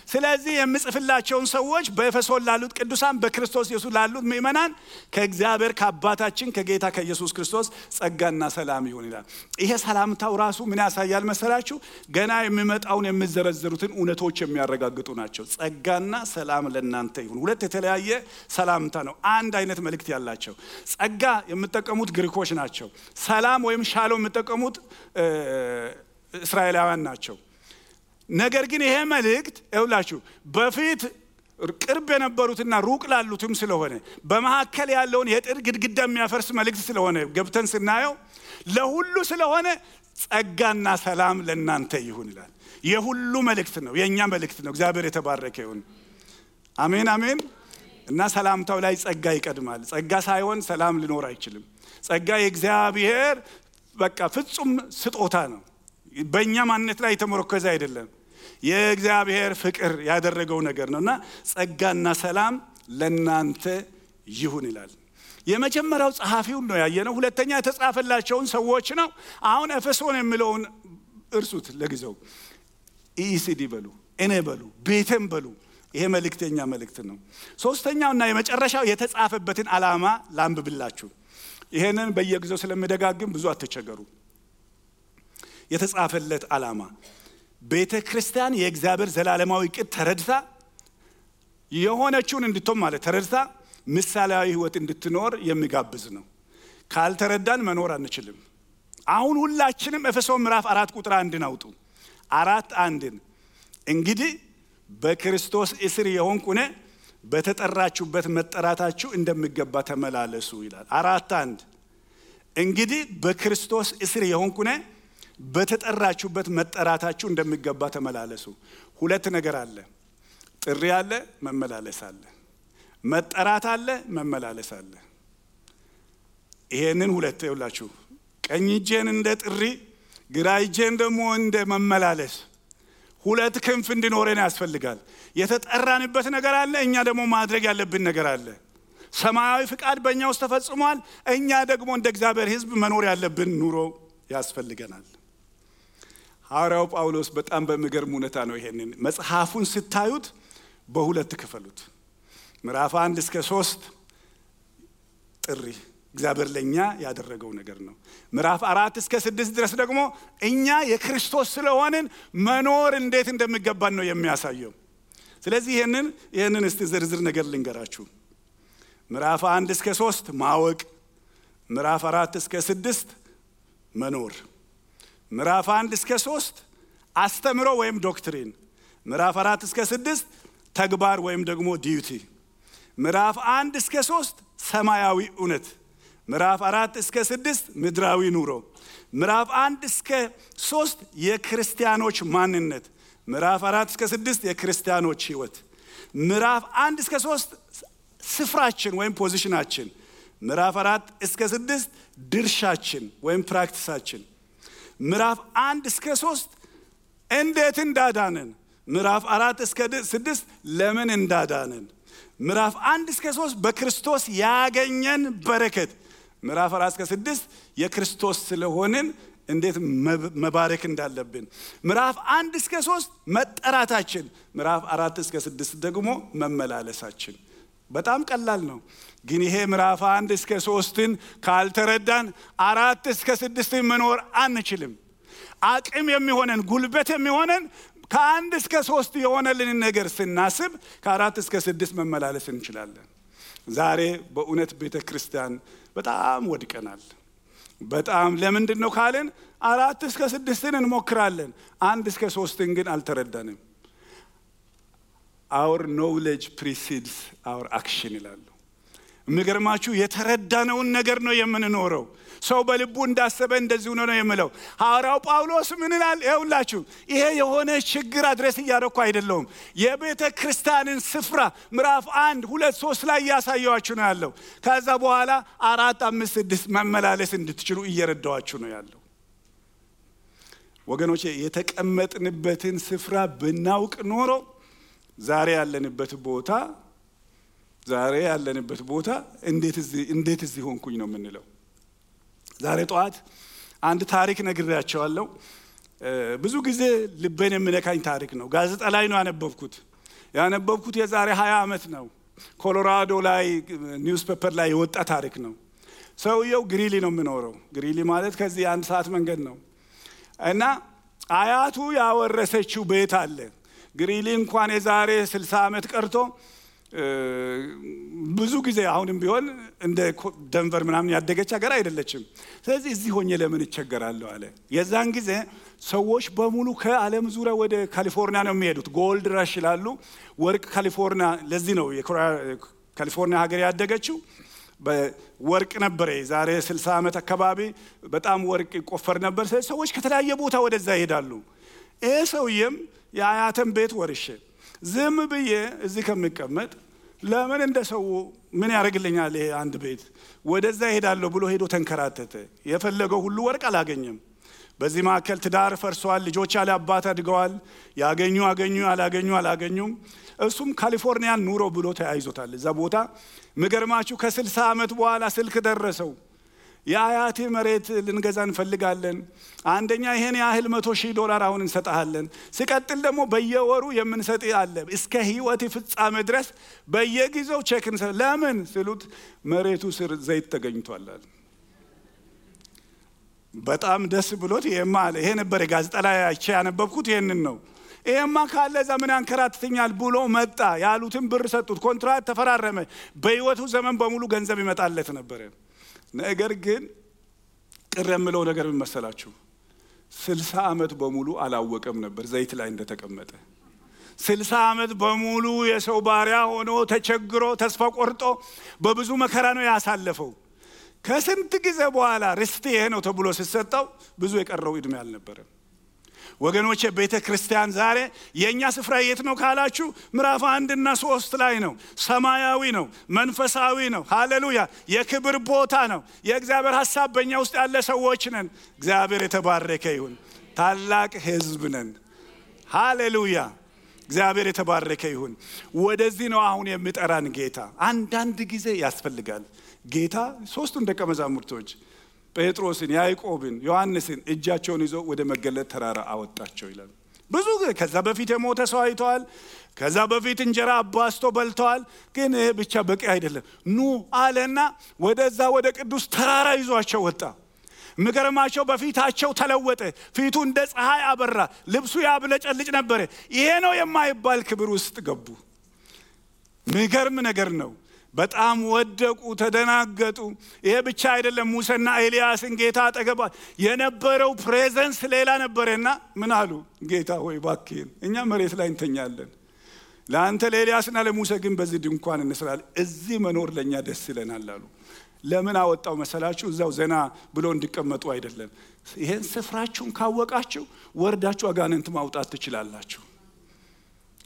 ስለዚህ የምጽፍላቸውን ሰዎች በኤፌሶን ላሉት ቅዱሳን በክርስቶስ ኢየሱስ ላሉት ምእመናን ከእግዚአብሔር ከአባታችን ከጌታ ከኢየሱስ ክርስቶስ ጸጋና ሰላም ይሁን ይላል። ይሄ ሰላምታው ራሱ ምን ያሳያል መሰላችሁ? ገና የሚመጣውን የሚዘረዘሩትን እውነቶች የሚያረጋግጡ ናቸው። ጸጋና ሰላም ለእናንተ ይሁን። ሁለት የተለያየ ሰላምታ ነው፣ አንድ አይነት መልእክት ያላቸው። ጸጋ የምትጠቀሙት ግሪኮች ናቸው። ሰላም ወይም ሻሎም የምትጠቀሙት እስራኤላውያን ናቸው። ነገር ግን ይሄ መልእክት ይውላችሁ በፊት ቅርብ የነበሩትና ሩቅ ላሉትም ስለሆነ በመሐከል ያለውን የጥር ግድግዳ የሚያፈርስ መልእክት ስለሆነ ገብተን ስናየው ለሁሉ ስለሆነ ጸጋና ሰላም ለእናንተ ይሁን ይላል። የሁሉ መልእክት ነው፣ የኛ መልእክት ነው። እግዚአብሔር የተባረከ ይሁን። አሜን አሜን። እና ሰላምታው ላይ ጸጋ ይቀድማል። ጸጋ ሳይሆን ሰላም ሊኖር አይችልም። ጸጋ የእግዚአብሔር በቃ ፍጹም ስጦታ ነው። በእኛ ማንነት ላይ የተመረኮዘ አይደለም። የእግዚአብሔር ፍቅር ያደረገው ነገር ነውና ጸጋና ሰላም ለእናንተ ይሁን ይላል። የመጀመሪያው ጸሐፊው ነው ያየነው። ሁለተኛ የተጻፈላቸውን ሰዎች ነው። አሁን ኤፌሶን የሚለውን እርሱት ለጊዜው። ኢሲዲ በሉ፣ እኔ በሉ፣ ቤተም በሉ። ይሄ መልእክተኛ መልእክት ነው። ሶስተኛውና የመጨረሻው የተጻፈበትን ዓላማ ላንብብላችሁ። ይሄንን በየጊዜው ስለምደጋግም ብዙ አትቸገሩ። የተጻፈለት ዓላማ ቤተ ክርስቲያን የእግዚአብሔር ዘላለማዊ ዕቅድ ተረድታ የሆነችውን እንድትሆን ማለት ተረድታ ምሳሌያዊ ሕይወት እንድትኖር የሚጋብዝ ነው። ካልተረዳን መኖር አንችልም። አሁን ሁላችንም ኤፌሶን ምዕራፍ 4 ቁጥር 1 አውጡ። 4:1 እንግዲህ በክርስቶስ እስር የሆንኩ እኔ በተጠራችሁበት መጠራታችሁ እንደሚገባ ተመላለሱ ይላል። 4:1 እንግዲህ በክርስቶስ እስር የሆንኩ እኔ በተጠራችሁበት መጠራታችሁ እንደሚገባ ተመላለሱ። ሁለት ነገር አለ። ጥሪ አለ፣ መመላለስ አለ። መጠራት አለ፣ መመላለስ አለ። ይሄንን ሁለት ይውላችሁ። ቀኝ እጄን እንደ ጥሪ፣ ግራ እጄን ደግሞ እንደ መመላለስ ሁለት ክንፍ እንዲኖረን ያስፈልጋል። የተጠራንበት ነገር አለ፣ እኛ ደግሞ ማድረግ ያለብን ነገር አለ። ሰማያዊ ፍቃድ በእኛ ውስጥ ተፈጽሟል። እኛ ደግሞ እንደ እግዚአብሔር ሕዝብ መኖር ያለብን ኑሮ ያስፈልገናል። ሐዋርያው ጳውሎስ በጣም በሚገርም ሁኔታ ነው ይሄንን መጽሐፉን ስታዩት በሁለት ክፈሉት። ምዕራፍ 1 እስከ 3 ጥሪ እግዚአብሔር ለኛ ያደረገው ነገር ነው። ምዕራፍ 4 እስከ 6 ድረስ ደግሞ እኛ የክርስቶስ ስለሆንን መኖር እንዴት እንደሚገባን ነው የሚያሳየው። ስለዚህ ይሄንን እስቲ ዝርዝር ነገር ልንገራችሁ። ምዕራፍ 1 እስከ 3 ማወቅ፣ ምዕራፍ 4 እስከ 6 መኖር፣ ምዕራፍ 1 እስከ 3 አስተምሮ ወይም ዶክትሪን፣ ምዕራፍ 4 እስከ 6 ተግባር ወይም ደግሞ ዲዩቲ፣ ምዕራፍ 1 እስከ 3 ሰማያዊ እውነት፣ ምዕራፍ 4 እስከ 6 ምድራዊ ኑሮ፣ ምዕራፍ 1 እስከ 3 የክርስቲያኖች ማንነት፣ ምዕራፍ 4 እስከ 6 የክርስቲያኖች ሕይወት፣ ምዕራፍ 1 እስከ 3 ስፍራችን ወይም ፖዚሽናችን፣ ምዕራፍ 4 እስከ 6 ድርሻችን ወይም ፕራክቲሳችን፣ ምዕራፍ 1 እስከ 3 እንዴት እንዳዳነን፣ ምዕራፍ 4 እስከ 6 ለምን እንዳዳነን፣ ምዕራፍ 1 እስከ 3 በክርስቶስ ያገኘን በረከት፣ ምዕራፍ 4 እስከ 6 የክርስቶስ ስለሆንን እንዴት መባረክ እንዳለብን፣ ምዕራፍ 1 እስከ 3 መጠራታችን፣ ምዕራፍ 4 እስከ 6 ደግሞ መመላለሳችን። በጣም ቀላል ነው። ግን ይሄ ምዕራፍ 1 እስከ 3ን ካልተረዳን 4 እስከ 6 መኖር አንችልም። አቅም የሚሆነን ጉልበት የሚሆነን ከ1 እስከ 3 የሆነልን ነገር ስናስብ ከ4 እስከ 6 መመላለስ እንችላለን። ዛሬ በእውነት ቤተክርስቲያን በጣም ወድቀናል። በጣም ለምንድን ነው ካልን 4 እስከ 6ን እንሞክራለን፣ 1 እስከ 3ን ግን አልተረዳንም። our knowledge precedes our action ይላሉ። የሚገርማችሁ የተረዳነውን ነገር ነው የምንኖረው። ሰው በልቡ እንዳሰበ እንደዚሁ ነው የሚለው ሐዋርያው ጳውሎስ ምን ይላል? ይኸውላችሁ ይሄ የሆነ ችግር አድሬስ እያደረኩ አይደለም። የቤተ ክርስቲያንን ስፍራ ምዕራፍ 1 2 3 ላይ ያሳየዋችሁ ነው ያለው። ከዛ በኋላ 4 5 6 መመላለስ እንድትችሉ እየረዳዋችሁ ነው ያለው። ወገኖቼ የተቀመጥንበትን ስፍራ ብናውቅ ኖሮ ዛሬ ያለንበት ቦታ እንዴት እዚህ ሆንኩኝ ነው የምንለው። ዛሬ ጠዋት አንድ ታሪክ ነግሬያቸዋለሁ። ብዙ ጊዜ ልቤን የሚነካኝ ታሪክ ነው። ጋዜጣ ላይ ነው ያነበብኩት የዛሬ 20 ዓመት ነው። ኮሎራዶ ላይ ኒውስ ፔፐር ላይ የወጣ ታሪክ ነው። ሰውየው ግሪሊ ነው የሚኖረው። ግሪሊ ማለት ከዚህ 1 ሰዓት መንገድ ነው። እና አያቱ ያወረሰችው ቤት አለ። ግሪሊ እንኳን የዛሬ 60 ዓመት ቀርቶ ብዙ ጊዜ አሁንም ቢሆን እንደ ደንቨር ምናምን ያደገች ሀገር አይደለችም። ስለዚህ እዚህ ሆኜ ለምን እቸገራለሁ አለ። የዛን ጊዜ ሰዎች በሙሉ ከዓለም ዙሪያ ወደ ካሊፎርኒያ ነው የሚሄዱት። ጎልድ ራሽ ይላሉ። ወርቅ ካሊፎርኒያ፣ ለዚህ ነው ካሊፎርኒያ ሀገር ያደገችው። በወርቅ ነበር። ዛሬ 60 ዓመት አካባቢ በጣም ወርቅ ይቆፈር ነበር። ሰዎች ከተለያየ ቦታ ወደዛ ይሄዳሉ። ይሄ ሰውዬም የአያተን ቤት ወርሼ ዝም ብዬ እዚህ ከሚቀመጥ ለምን እንደሰው ምን ያደርግልኛል ይሄ አንድ ቤት ወደዛ ይሄዳለሁ ብሎ ሄዶ ተንከራተተ። የፈለገው ሁሉ ወርቅ አላገኘም። በዚህ መካከል ትዳር ፈርሷል። ልጆች ያለ አባት አድገዋል። ያገኙ አላገኙም። እሱም ካሊፎርኒያን ኑሮ ብሎ ተያይዞታል እዛ ቦታ። ምገርማችሁ ከ60 ዓመት በኋላ ስልክ ደረሰው። የአያቴ መሬት ልንገዛ እንፈልጋለን። አንደኛ ይሄን ያህል $100,000 አሁን እንሰጣለን። ሲቀጥል ደግሞ በየወሩ የምንሰጥ አለ እስከ ህይወት ፍጻሜ ድረስ በየጊዜው ቼክ እንሰጥ። ለምን ሲሉት መሬቱ ስር ዘይት ተገኝቷል። በጣም ደስ ብሎት ይሄ ነበር ጋዜጣ ላይ አይቼ ያነበብኩት ይሄንን ነው። ይሄማ ካለ ዘመን አንከራትተኛል ብሎ መጣ። ያሉትን ብር ሰጡት። ኮንትራት ተፈራረመ። በህይወቱ ዘመን በሙሉ ገንዘብ ይመጣለት ነበር። ነገር ግን ቅር የምለው ነገር ምን መሰላችሁ? 60 ዓመት በሙሉ አላወቀም ነበር ዘይት ላይ እንደተቀመጠ። 60 ዓመት በሙሉ የሰው ባሪያ ሆኖ ተቸግሮ ተስፋ ቆርጦ በብዙ መከራ ነው ያሳለፈው። ከስንት ጊዜ በኋላ ርስት ይሄ ነው ተብሎ ሲሰጠው ብዙ የቀረው እድሜ አልነበረም። ወገኖቼ ቤተ ክርስቲያን ዛሬ የኛ ስፍራ የት ነው ካላችሁ ምዕራፍ 1 እና 3 ላይ ነው። ሰማያዊ ነው፣ መንፈሳዊ ነው። ሃሌሉያ! የክብር ቦታ ነው። የእግዚአብሔር ሐሳብ በእኛ ውስጥ ያለ ሰዎች ነን። እግዚአብሔር የተባረከ ይሁን። ታላቅ ሕዝብ ነን። ሃሌሉያ! እግዚአብሔር የተባረከ ይሁን። ወደዚህ ነው አሁን የሚጠራን ጌታ። አንዳንድ ጊዜ ያስፈልጋል። ጌታ 3ቱን ደቀ መዛሙርቶች ጴጥሮስን፣ ያዕቆብን፣ ዮሐንስን እጃቸውን ይዞ ወደ መገለጥ ተራራ አወጣቸው ይላል። ብዙ ከዛ በፊት የሞተ ሰው አይተዋል። ከዛ በፊት እንጀራ አባስቶ በልተዋል። ግን ይሄ ብቻ በቂ አይደለም። ኑ አለና ወደዛ ወደ ቅዱስ ተራራ ይዟቸው ወጣ። ምገርማቸው በፊታቸው ተለወጠ። ፊቱ እንደ ፀሐይ አበራ። ልብሱ ያብለጨልጭ ነበር። ይሄ ነው የማይባል ክብር ውስጥ ገቡ። ምገርም ነገር ነው። በጣም ወደቁ፣ ተደናገጡ። ይሄ ብቻ አይደለም። ሙሴና ኤልያስን ጌታ አጠገባ የነበረው ፕሬዘንስ ሌላ ነበርና ምን አሉ? ጌታ ሆይ እባክህን እኛ መሬት ላይ እንተኛለን። ለአንተ ለኤልያስና ለሙሴ ግን በዚህ ድንኳን እንስራለን። እዚህ መኖር ለኛ ደስ ይለናል አሉ። ለምን አወጣው መሰላችሁ? እዛው ዘና ብሎ እንዲቀመጡ አይደለም። ይሄን ስፍራችሁን ካወቃችሁ ወርዳችሁ አጋንንት ማውጣት ትችላላችሁ።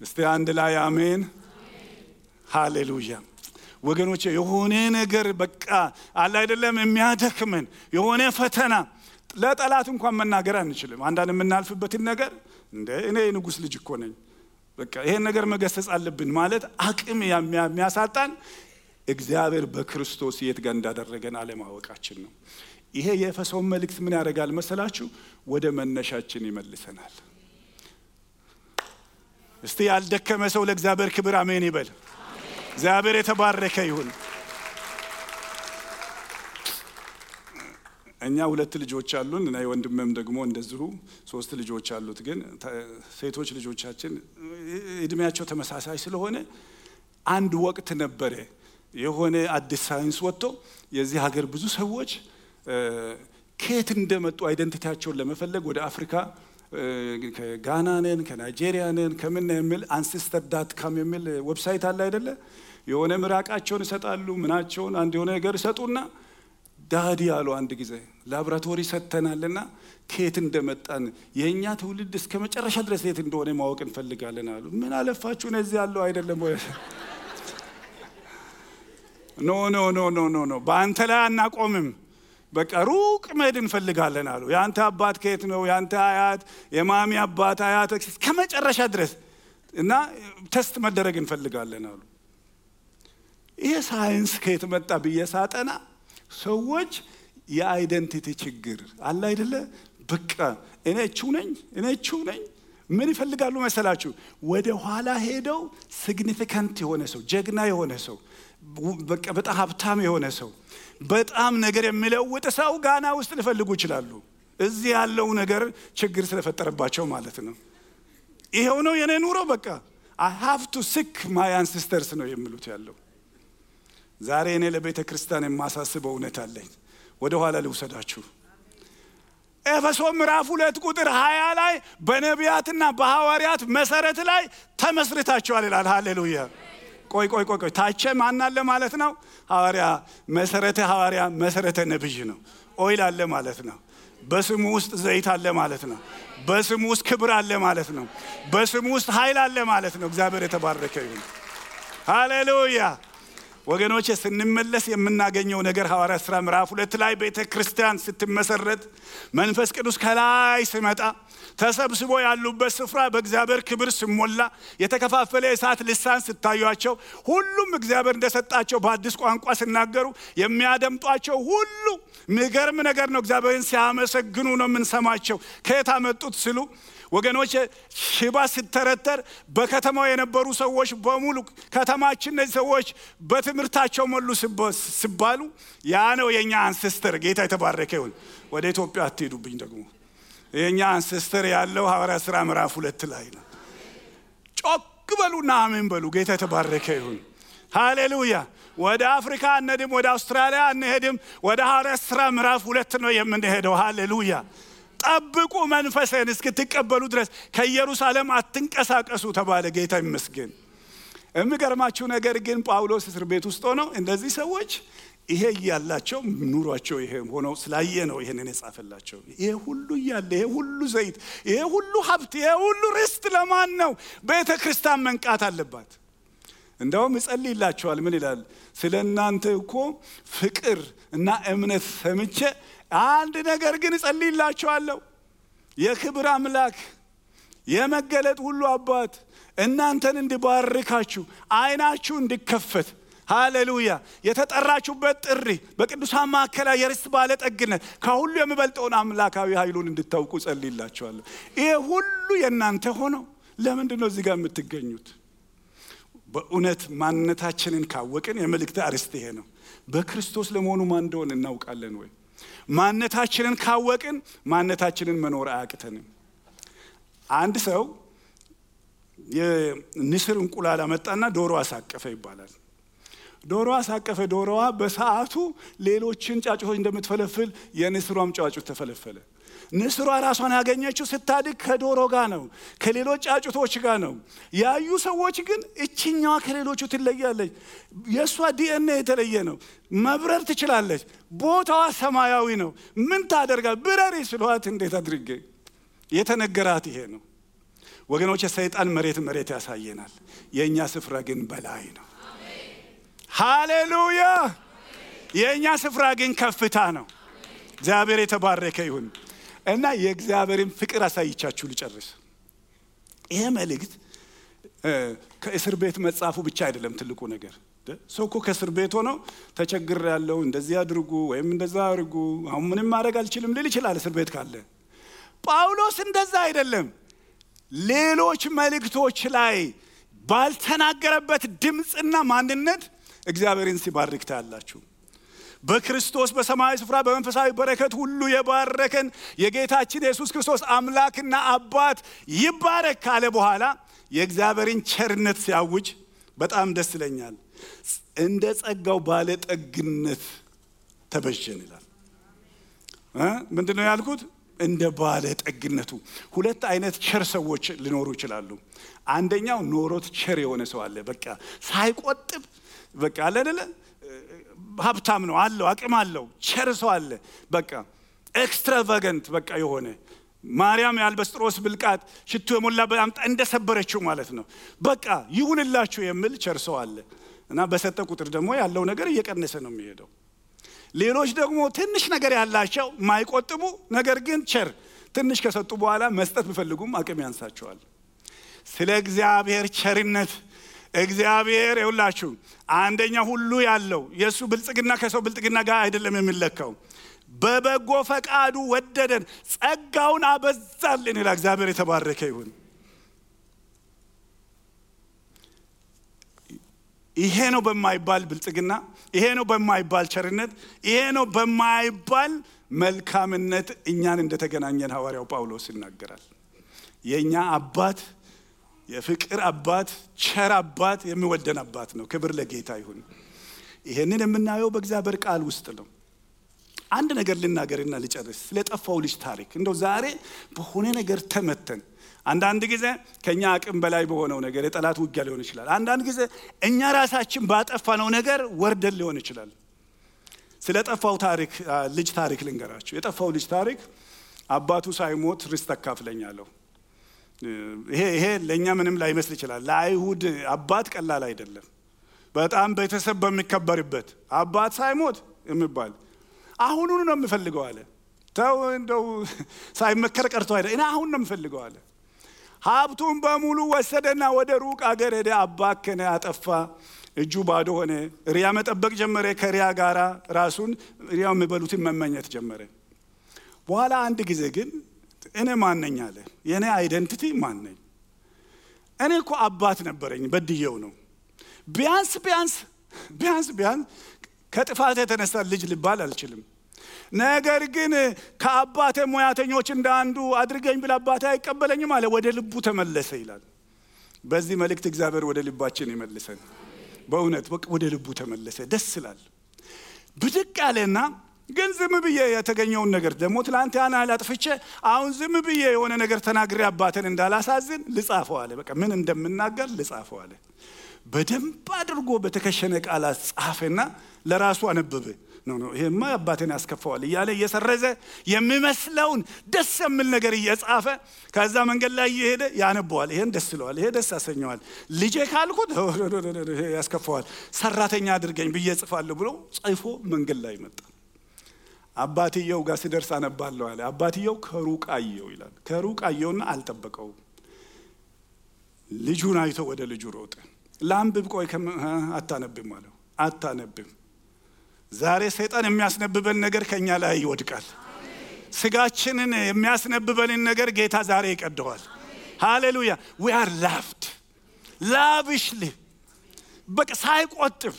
እስቲ አንድ ላይ አሜን፣ ሃሌሉያ። ወገኖቼ የሆነ ነገር በቃ አለ አይደለም የሚያደክመን የሆነ ፈተና ለጠላት እንኳን መናገር አንችልም። አንዳንድ የምናልፍበትን ነገር እንደ እኔ ንጉስ ልጅ እኮ ነኝ በቃ ይሄን ነገር መገሰጽ አለብን ማለት አቅም የሚያሳጣን እግዚአብሔር በክርስቶስ የት ጋር እንዳደረገን አለማወቃችን ነው። ይሄ የኤፌሶን መልእክት ምን ያደርጋል መሰላችሁ? ወደ መነሻችን ይመልሰናል። እስቲ ያልደከመ ሰው ለእግዚአብሔር ክብር አሜን ይበል። እግዚአብሔር የተባረከ ይሁን። እኛ 2 ልጆች አሉን እና ወንድሜም ደግሞ እንደዚሁ 3 ልጆች አሉት። ግን ሴቶች ልጆቻችን እድሜያቸው ተመሳሳይ ስለሆነ አንድ ወቅት ነበረ የሆነ አዲስ ሳይንስ ወጥቶ የዚህ ሀገር ብዙ ሰዎች ከየት እንደመጡ አይደንቲቲያቸውን ለመፈለግ ወደ አፍሪካ ከጋና ነን ከናይጄሪያ ነን ከምን የሚል ancestor.com የሚል ዌብሳይት አለ አይደለ? የሆነ ምራቃቸውን ይሰጣሉ ምናቸውን አንድ የሆነ ነገር ይሰጡና ዳዲ ያሉ አንድ ጊዜ ላብራቶሪ ሰተናልና ከየት እንደመጣን የኛ ትውልድ እስከ መጨረሻ ድረስ የት እንደሆነ ማወቅ እንፈልጋለን አሉ። ምን አለፋችሁ እዚህ ያለው አይደለም ወይ? ኖ በአንተ ላይ አናቆምም። በቃ ሩቅ መሄድ እንፈልጋለን አሉ። ያንተ አባት ከየት ነው? ያንተ አያት፣ የማሚ አባት አያት ከመጨረሻ ድረስ እና ቴስት መደረግ እንፈልጋለን አሉ። ይሄ ሳይንስ ከየት መጣ ብዬ ሳጠና ሰዎች የአይደንቲቲ ችግር አለ አይደለ? በቃ እኔ እቹ ነኝ ምን ይፈልጋሉ መሰላችሁ? ወደ ኋላ ሄደው ሲግኒፊካንት የሆነ ሰው፣ ጀግና የሆነ ሰው፣ በቃ በጣም ሀብታም የሆነ ሰው፣ በጣም ነገር የሚለውጥ ሰው ጋና ውስጥ ሊፈልጉ ይችላሉ። እዚህ ያለው ነገር ችግር ስለፈጠረባቸው ማለት ነው። ይሄው ነው የኔ ኑሮ በቃ I have to seek my ancestors ነው የሚሉት ያለው። ዛሬ እኔ ለቤተ ክርስቲያን የማሳስበው እውነት አለኝ። ወደ ኋላ ልውሰዳችሁ። ኤፌሶን ምዕራፍ 2 ቁጥር 20 ላይ በነቢያትና በሐዋርያት መሰረት ላይ ተመስርታችኋል ይላል። ሃሌሉያ። ቆይ ታቼ ማን አለ ማለት ነው? ሐዋርያ መሰረተ ነብይ ነው። ኦይል አለ ማለት ነው። በስሙ ውስጥ ዘይት አለ ማለት ነው። በስሙ ውስጥ ክብር አለ ማለት ነው። በስሙ ውስጥ ኃይል አለ ማለት ነው። እግዚአብሔር የተባረከ ይሁን። ሃሌሉያ። ወገኖች ስንመለስ የምናገኘው ነገር ሐዋርያት ሥራ ምዕራፍ 2 ላይ ቤተክርስቲያን ስትመሰረት መንፈስ ቅዱስ ከላይ ሲመጣ ተሰብስቦ ያሉበት ስፍራ በእግዚአብሔር ክብር ሲሞላ የተከፋፈለ የእሳት ልሳን ሲታዩአቸው ሁሉም እግዚአብሔር እንደሰጣቸው በአዲስ ቋንቋ ሲናገሩ የሚያደምጧቸው ሁሉ የሚገርም ነገር ነው። እግዚአብሔርን ሲያመሰግኑ ነው የምንሰማቸው። ከየት አመጡት ሲሉ ወገኖች ሽባ ሲተረተር በከተማው የነበሩ ሰዎች በሙሉ ከተማችን እነዚህ ሰዎች በትምህርታቸው ሞሉ ሲባሉ ያ ነው የኛ አንሴስተር። ጌታ የተባረከ ይሁን። ወደ ኢትዮጵያ አትሄዱብኝ ደግሞ የኛ አንሴስተር ያለው ሐዋርያት ሥራ ምዕራፍ 2 ላይ ነው። ጮክ በሉና አሜን በሉ። ጌታ የተባረከ ይሁን። ሃሌሉያ። ወደ አፍሪካ አንሄድም፣ ወደ አውስትራሊያ አንሄድም። ወደ ሐዋርያት ሥራ ምዕራፍ 2 ነው የምንሄደው። ሃሌሉያ። ጠብቁ መንፈስን እስክትቀበሉ ድረስ ከኢየሩሳሌም አትንቀሳቀሱ ተባለ። ጌታ ይመስገን። የሚገርማችሁ ነገር ግን ጳውሎስ እስር ቤት ውስጥ ሆነው እንደዚህ ሰዎች ይሄ ያላቸው ኑሯቸው ይሄ ሆኖ ስላየ ነው ይሄንን የጻፈላቸው። ይሄ ሁሉ ያለ፣ ይሄ ሁሉ ዘይት፣ ይሄ ሁሉ ሀብት፣ ይሄ ሁሉ ርስት ለማን ነው? ቤተክርስቲያን መንቃት አለባት። እንደውም ይጸልይላችኋል። ምን ይላል? ስለናንተ እኮ ፍቅር እና እምነት ሰምቼ አንድ ነገር ግን እጸልይላችኋለሁ። የክብር አምላክ የመገለጥ ሁሉ አባት እናንተን እንዲባርካችሁ አይናችሁ እንዲከፈት፣ ሃሌሉያ፣ የተጠራችሁበት ጥሪ በቅዱሳን ማዕከል የርስት ባለጠግነት ከሁሉ የሚበልጠውን አምላካዊ ኃይሉን እንድታውቁ እጸልይላችኋለሁ። ይሄ ሁሉ የእናንተ ሆኖ ለምንድን ነው እዚህ ጋር የምትገኙት? በእውነት ማንነታችንን ካወቅን የመልእክት አርዕስት ይሄ ነው። በክርስቶስ ለመሆኑ ማን እንደሆነ እናውቃለን ወይ? ማንነታችንን ካወቅን ማንነታችንን መኖር አያቅተንም። አንድ ሰው የንስር እንቁላል አመጣና ዶሮ አሳቀፈ ይባላል። ዶሮ አሳቀፈ። ዶሮዋ በሰዓቱ ሌሎችን ጫጩቶች እንደምትፈለፍል የንስሯም ጫጩት ተፈለፈለ። ንስሯ ራሷን ያገኘችው ስታድግ ከዶሮ ጋር ነው፣ ከሌሎች ጫጩቶች ጋር ነው። ያዩ ሰዎች ግን እችኛዋ ከሌሎቹ ትለያለች፣ የሷ ዲኤንኤ የተለየ ነው፣ መብረር ትችላለች፣ ቦታዋ ሰማያዊ ነው፣ ምን ታደርጋል? ብረሪ ስሏት እንዴት አድርጌ የተነገራት ይሄ ነው። ወገኖች ሰይጣን መሬት ያሳየናል፣ የኛ ስፍራ ግን በላይ ነው። ሃሌሉያ። የኛ ስፍራ ግን ከፍታ ነው። እግዚአብሔር የተባረከ ይሁን። እና የእግዚአብሔርን ፍቅር አሳይቻችሁ ልጨርስ። ይሄ መልእክት ከእስር ቤት መጻፉ ብቻ አይደለም ትልቁ ነገር። ሰው እኮ ከእስር ቤት ሆኖ ተቸግር ያለው እንደዚህ አድርጉ ወይም እንደዛ አድርጉ አሁን ምንም ማድረግ አልችልም ሊል ይችላል እስር ቤት ካለ። ጳውሎስ እንደዛ አይደለም። ሌሎች መልእክቶች ላይ ባልተናገረበት ድምጽና ማንነት እግዚአብሔርን ሲባርክ ታያላችሁ። በክርስቶስ በሰማያዊ ስፍራ በመንፈሳዊ በረከት ሁሉ የባረከን የጌታችን ኢየሱስ ክርስቶስ አምላክና አባት ይባረክ ካለ በኋላ የእግዚአብሔርን ቸርነት ሲያውጅ በጣም ደስ ይለኛል። እንደ ጸጋው ባለጠግነት ተበጀን ይላል። ምንድነው ያልኩት? እንደ ባለጠግነቱ። ሁለት አይነት ቸር ሰዎች ሊኖሩ ይችላሉ። አንደኛው ኖሮት ቸር የሆነ ሰው አለ። በቃ ሳይቆጥብ በቃ አለ አይደለ? ሀብታም ነው አለው፣ አቅም አለው፣ ቸር ሰው አለ። በቃ ኤክስትራቫጋንት በቃ የሆነ ማርያም የአልበስጥሮስ ብልቃጥ ሽቱ የሞላበት አምጣ እንደሰበረችው ማለት ነው። በቃ ይሁንላችሁ የሚል ቸር ሰው አለ። እና በሰጠ ቁጥር ደግሞ ያለው ነገር እየቀነሰ ነው የሚሄደው። ሌሎች ደግሞ ትንሽ ነገር ያላቸው ማይቆጥቡ ነገር ግን ቸር ትንሽ ከሰጡ በኋላ መስጠት ቢፈልጉም አቅም ያንሳቸዋል። ስለ እግዚአብሔር ቸርነት እግዚአብሔር ይውላችሁ አንደኛ ሁሉ ያለው የሱ ብልጽግና ከሰው ብልጽግና ጋር አይደለም የሚለካው። በበጎ ፈቃዱ ወደደን ጸጋውን አበዛልን ይላል። እግዚአብሔር የተባረከ ይሁን። ይሄ ነው በማይባል ብልጽግና፣ ይሄ ነው በማይባል ቸርነት፣ ይሄ ነው በማይባል መልካምነት እኛን እንደተገናኘን ሐዋርያው ጳውሎስ ይናገራል። የኛ አባት የፍቅር አባት ቸር አባት የሚወደን አባት ነው። ክብር ለጌታ ይሁን። ይሄንን የምናየው በእግዚአብሔር ቃል ውስጥ ነው። አንድ ነገር ልናገርና ልጨርስ። ስለጠፋው ልጅ ታሪክ እንደው ዛሬ በሆነ ነገር ተመተን አንዳንድ ጊዜ ከኛ አቅም በላይ በሆነው ነገር የጠላት ውጊያ ሊሆን ይችላል። አንዳንድ ጊዜ እኛ ራሳችን ባጠፋነው ነገር ወርደን ሊሆን ይችላል። ስለጠፋው ታሪክ ልጅ ታሪክ ልንገራችሁ። የጠፋው ልጅ ታሪክ አባቱ ሳይሞት ርስት አካፍለኛለሁ። ይሄ ለኛ ምንም ላይመስል ይችላል። ለአይሁድ አባት ቀላል አይደለም። በጣም ቤተሰብ በሚከበርበት አባት ሳይሞት የሚባል አሁኑን ነው የምፈልገው አለ። ተው እንደው ሳይመከር ቀርቶ አይደል እኔ አሁን ነው የምፈልገው አለ። ሀብቱን በሙሉ ወሰደና ወደ ሩቅ አገር ሄደ። አባከነ፣ አጠፋ፣ እጁ ባዶ ሆነ። ሪያ መጠበቅ ጀመረ። ከሪያ ጋራ ራሱን ሪያው የሚበሉትን መመኘት ጀመረ። በኋላ አንድ ጊዜ ግን እኔ ማን ነኝ አለ። የኔ አይደንቲቲ ማን ነኝ? እኔ እኮ አባት ነበረኝ በድየው ነው። ቢያንስ ከጥፋት የተነሳ ልጅ ልባል አልችልም። ነገር ግን ከአባቴ ሙያተኞች እንደ አንዱ አድርገኝ ብል አባቴ አይቀበለኝም አለ። ወደ ልቡ ተመለሰ ይላል። በዚህ መልእክት እግዚአብሔር ወደ ልባችን ይመልሰን። በእውነት ወደ ልቡ ተመለሰ። ደስ ይላል። ብድቅ ያለና ግን ዝም ብዬ የተገኘውን ነገር ደግሞ ትላንት ያን አላጥፍቼ አሁን ዝም ብዬ የሆነ ነገር ተናግሬ አባቴን እንዳላሳዝን ልጻፈው አለ። በቃ ምን እንደምናገር ልጻፈው አለ። በደንብ አድርጎ በተከሸነ ቃላት ጻፈና ለራሱ አነበበ። ነው ይሄማ አባቴን ያስከፋዋል እያለ እየሰረዘ የሚመስለውን ደስ የሚል ነገር እየጻፈ ከዛ መንገድ ላይ እየሄደ ያነበዋል። ይሄን ደስ ይለዋል፣ ይሄ ደስ ያሰኘዋል። ልጄ ካልኩት ይሄ ያስከፋዋል፣ ሰራተኛ አድርገኝ ብዬ ጽፋለሁ ብሎ ጽፎ መንገድ ላይ መጣ። አባትየው ጋር ሲደርስ አነባለሁ አለ። አባትየው ከሩቅ አየው ይላል። ከሩቅ አየውና አልጠበቀውም። ልጁን አይቶ ወደ ልጁ ሮጠ። ላንብብ፣ ቆይ አታነብም አለው። አታነብም። ዛሬ ሰይጣን የሚያስነብበን ነገር ከኛ ላይ ይወድቃል። ስጋችንን የሚያስነብበንን ነገር ጌታ ዛሬ ይቀደዋል። ሃሌሉያ። we are loved lavishly በቃ ሳይቆጥብ።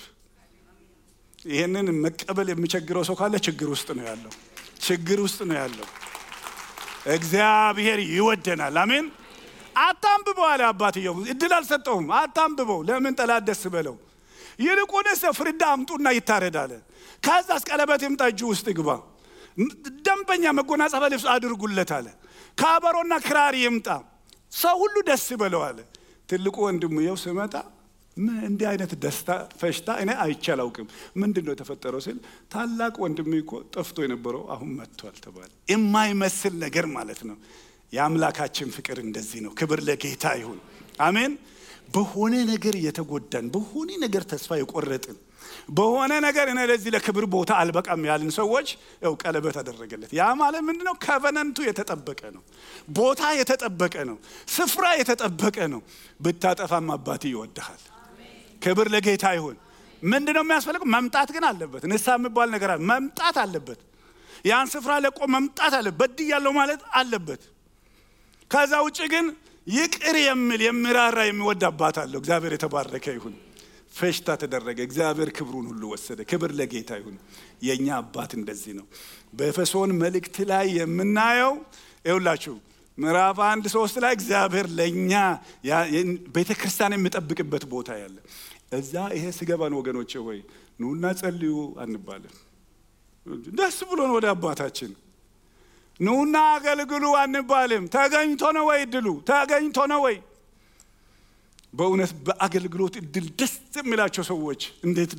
ይሄንን መቀበል የሚቸግረው ሰው ካለ ችግር ውስጥ ነው ያለው። ችግር ውስጥ ነው ያለው። እግዚአብሔር ይወደናል። አሜን። አታንብበው አለ አባትየው። እድል አልሰጠውም። አታንብበው። ለምን ጠላት ደስ በለው። ይልቁንስ ፍርዳ አምጡና ይታረዳል። ከዛስ ቀለበት ይምጣ፣ እጁ ውስጥ ይግባ፣ ደንበኛ መጎናጸፊያ ልብስ አድርጉለት አለ። ከበሮና ክራር ይምጣ፣ ሰው ሁሉ ደስ ይበለው አለ። ትልቁ ወንድሙ ይኸው ሲመጣ ምን እንዲህ አይነት ደስታ ፈሽታ እኔ አይቼ አላውቅም። ምንድነው የተፈጠረው ሲል ታላቅ ወንድሜ እኮ ጠፍቶ የነበረው አሁን መጥቷል ተባለ። የማይመስል ነገር ማለት ነው። የአምላካችን ፍቅር እንደዚህ ነው። ክብር ለጌታ ይሁን። አሜን። በሆነ ነገር የተጎዳን፣ በሆነ ነገር ተስፋ የቆረጥን፣ በሆነ ነገር እኔ ለዚህ ለክብር ቦታ አልበቃም ያልን ሰዎች ያው ቀለበት አደረገለት። ያ ማለት ምንድነው? ኮቨናንቱ የተጠበቀ ነው። ቦታ የተጠበቀ ነው። ስፍራ የተጠበቀ ነው። ብታጠፋም አባት ይወድሃል። ክብር ለጌታ ይሁን። ምንድነው የሚያስፈልገው? መምጣት ግን አለበት። ንስሐ የሚባል ነገር አለ። መምጣት አለበት። ያን ስፍራ ለቆ መምጣት አለበት። በድያለሁ ማለት አለበት። ከዛ ውጪ ግን ይቅር የሚል የሚራራ የሚወድ አባት አለው። እግዚአብሔር የተባረከ ይሁን። ፈሽታ ተደረገ። እግዚአብሔር ክብሩን ሁሉ ወሰደ። ክብር ለጌታ ይሁን። የኛ አባት እንደዚህ ነው። በኤፌሶን መልእክት ላይ የምናየው ይኸውላችሁ ምዕራፍ 1:3 ላይ እግዚአብሔር ለኛ ቤተክርስቲያን የሚጠብቅበት ቦታ ያለ እዛ ይሄ ሲገባን ወገኖቼ ሆይ ኑና ጸልዩ አንባልም። ደስ ብሎን ወደ አባታችን ኑና አገልግሉ አንባልም። ተገኝቶ ነው ወይ ድሉ? ተገኝቶ ነው ወይ? በእውነት በአገልግሎት እድል ደስ የሚላቸው ሰዎች እንዴት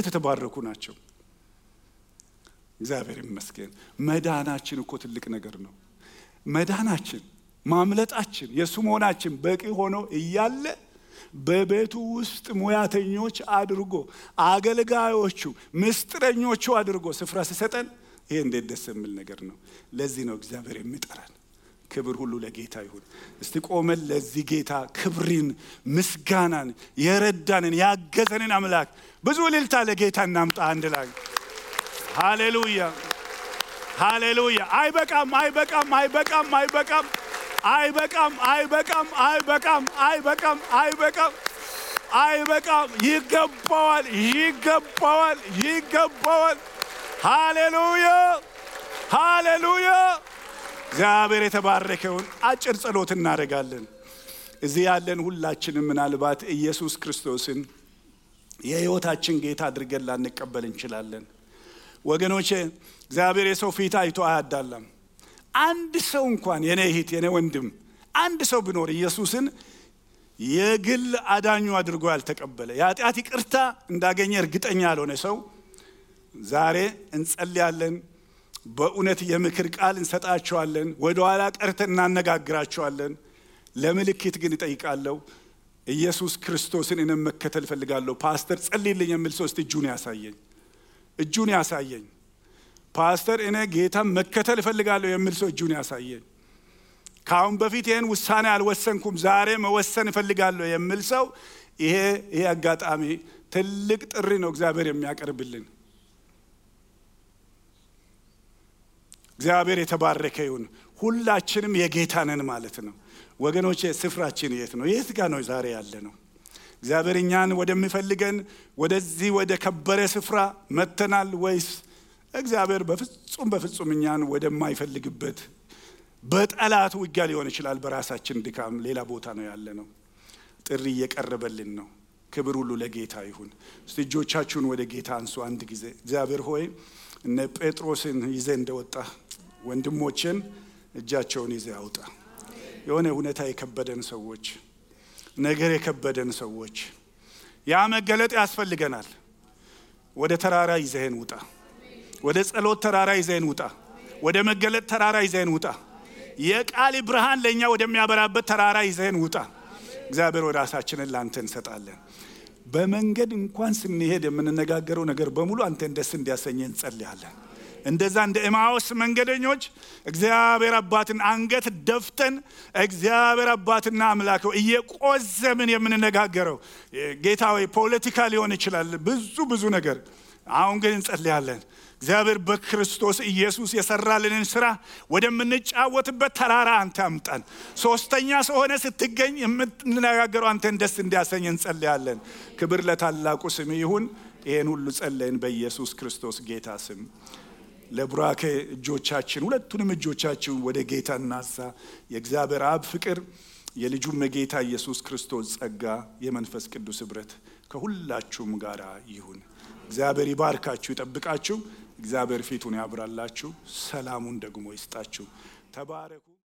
የተባረኩ ናቸው። እግዚአብሔር ይመስገን። መዳናችን እኮ ትልቅ ነገር ነው። መዳናችን ማምለጣችን የሱ መሆናችን በቂ ሆኖ እያለ በቤቱ ውስጥ ሙያተኞች አድርጎ አገልጋዮቹ ምስጥረኞቹ አድርጎ ስፍራ ሲሰጠን ይሄ እንዴት ደስ የሚል ነገር ነው። ለዚህ ነው እግዚአብሔር የሚጠራን። ክብር ሁሉ ለጌታ ይሁን። እስቲ ቆመን ለዚህ ጌታ ክብርን ምስጋናን የረዳንን ያገዘንን አምላክ ብዙ እልልታ ለጌታ እናምጣ አንድ ላይ። ሃሌሉያ ሃሌሉያ። አይበቃም አይበቃም አይበቃም አይበቃም አይበቃም አይበቃም አይበቃም አይበቃም አይበቃም አይበቃም። ይገባዋል ይገባዋል ይገባዋል። ሃሌሉያ ሃሌሉያ። እግዚአብሔር የተባረከውን አጭር ጸሎት እናደርጋለን። እዚህ ያለን ሁላችንም ምናልባት ኢየሱስ ክርስቶስን የሕይወታችን ጌታ አድርገን ላንቀበል እንችላለን። ወገኖቼ እግዚአብሔር የሰው ፊት አይቶ አያዳላም። አንድ ሰው እንኳን የኔ እህት የኔ ወንድም አንድ ሰው ቢኖር ኢየሱስን የግል አዳኙ አድርጎ ያልተቀበለ የኃጢአት ይቅርታ እንዳገኘ እርግጠኛ ያልሆነ ሰው ዛሬ እንጸልያለን። በእውነት የምክር ቃል እንሰጣቸዋለን። ወደ ኋላ ቀርተን እናነጋግራቸዋለን። ለምልክት ግን እጠይቃለሁ። ኢየሱስ ክርስቶስን እኔ መከተል ፈልጋለሁ ፓስተር ጸልይልኝ የሚል ሰው እስቲ እጁን ያሳየኝ። ፓስተር እኔ ጌታን መከተል ፈልጋለሁ የሚል ሰው እጁን ያሳየኝ። ካሁን በፊት ይሄን ውሳኔ አልወሰንኩም ዛሬ መወሰን ፈልጋለሁ የሚል ሰው ይሄ አጋጣሚ ትልቅ ጥሪ ነው እግዚአብሔር የሚያቀርብልን። እግዚአብሔር የተባረከ ይሁን። ሁላችንም የጌታ ነን ማለት ነው። ወገኖቼ ስፍራችን የት ነው? የት ጋር ነው ዛሬ ያለ ነው? እግዚአብሔር እኛን ወደሚፈልገን ወደዚህ ወደ ከበረ ስፍራ መተናል ወይስ እግዚአብሔር በፍጹም እኛን ወደማይፈልግበት በጠላት ውጊያ ሊሆን ይችላል በራሳችን ድካም ሌላ ቦታ ነው ያለ ነው? ጥሪ እየቀረበልን ነው። ክብር ሁሉ ለጌታ ይሁን። እስቲ እጆቻችሁን ወደ ጌታ አንሱ አንድ ጊዜ። እግዚአብሔር ሆይ እነ ጴጥሮስን ይዘ እንደወጣ ወንድሞችን እጃቸውን ይዘ ያውጣ። የሆነ ሁኔታ የከበደን ሰዎች ነገር የከበደን ሰዎች ያ መገለጥ ያስፈልገናል። ወደ ተራራ ይዘን ውጣ። ወደ ጸሎት ተራራ ይዘን ውጣ። ወደ መገለጥ ተራራ ይዘን ውጣ። የቃል ብርሃን ለኛ ወደሚያበራበት ተራራ ይዘን ውጣ። እግዚአብሔር ወደ ራሳችንን ላንተ እንሰጣለን። በመንገድ እንኳን ስንሄድ የምንነጋገረው ነገር በሙሉ አንተን ደስ እንዲያሰኘን እንጸልያለን። እንደዛ እንደ ኤማውስ መንገደኞች እግዚአብሔር አባትን አንገት ደፍተን እግዚአብሔር አባትና አምላከው እየቆዘምን የምንነጋገረው ጌታ ሆይ ፖለቲካ ሊሆን ይችላል ብዙ ነገር። አሁን ግን እንጸልያለን እግዚአብሔር በክርስቶስ ኢየሱስ የሰራልንን ስራ ወደምንጫወትበት ተራራ አንተ አምጣን። ሶስተኛ ሰው ሆነ ስትገኝ የምንነጋገረው አንተን ደስ እንዲያሰኘን እንጸልያለን። ክብር ለታላቁ ስም ይሁን። ይሄን ሁሉ ጸለይን በኢየሱስ ክርስቶስ ጌታ ስም። ለብራኬ እጆቻችን ሁለቱንም እጆቻችን ወደ ጌታ እናንሳ። የእግዚአብሔር አብ ፍቅር የልጁም ጌታ ኢየሱስ ክርስቶስ ጸጋ የመንፈስ ቅዱስ ኅብረት ከሁላችሁም ጋር ይሁን። እግዚአብሔር ይባርካችሁ ይጠብቃችሁ። እግዚአብሔር ፊቱን ያብራላችሁ ሰላሙን ደግሞ ይስጣችሁ። ተባረኩ።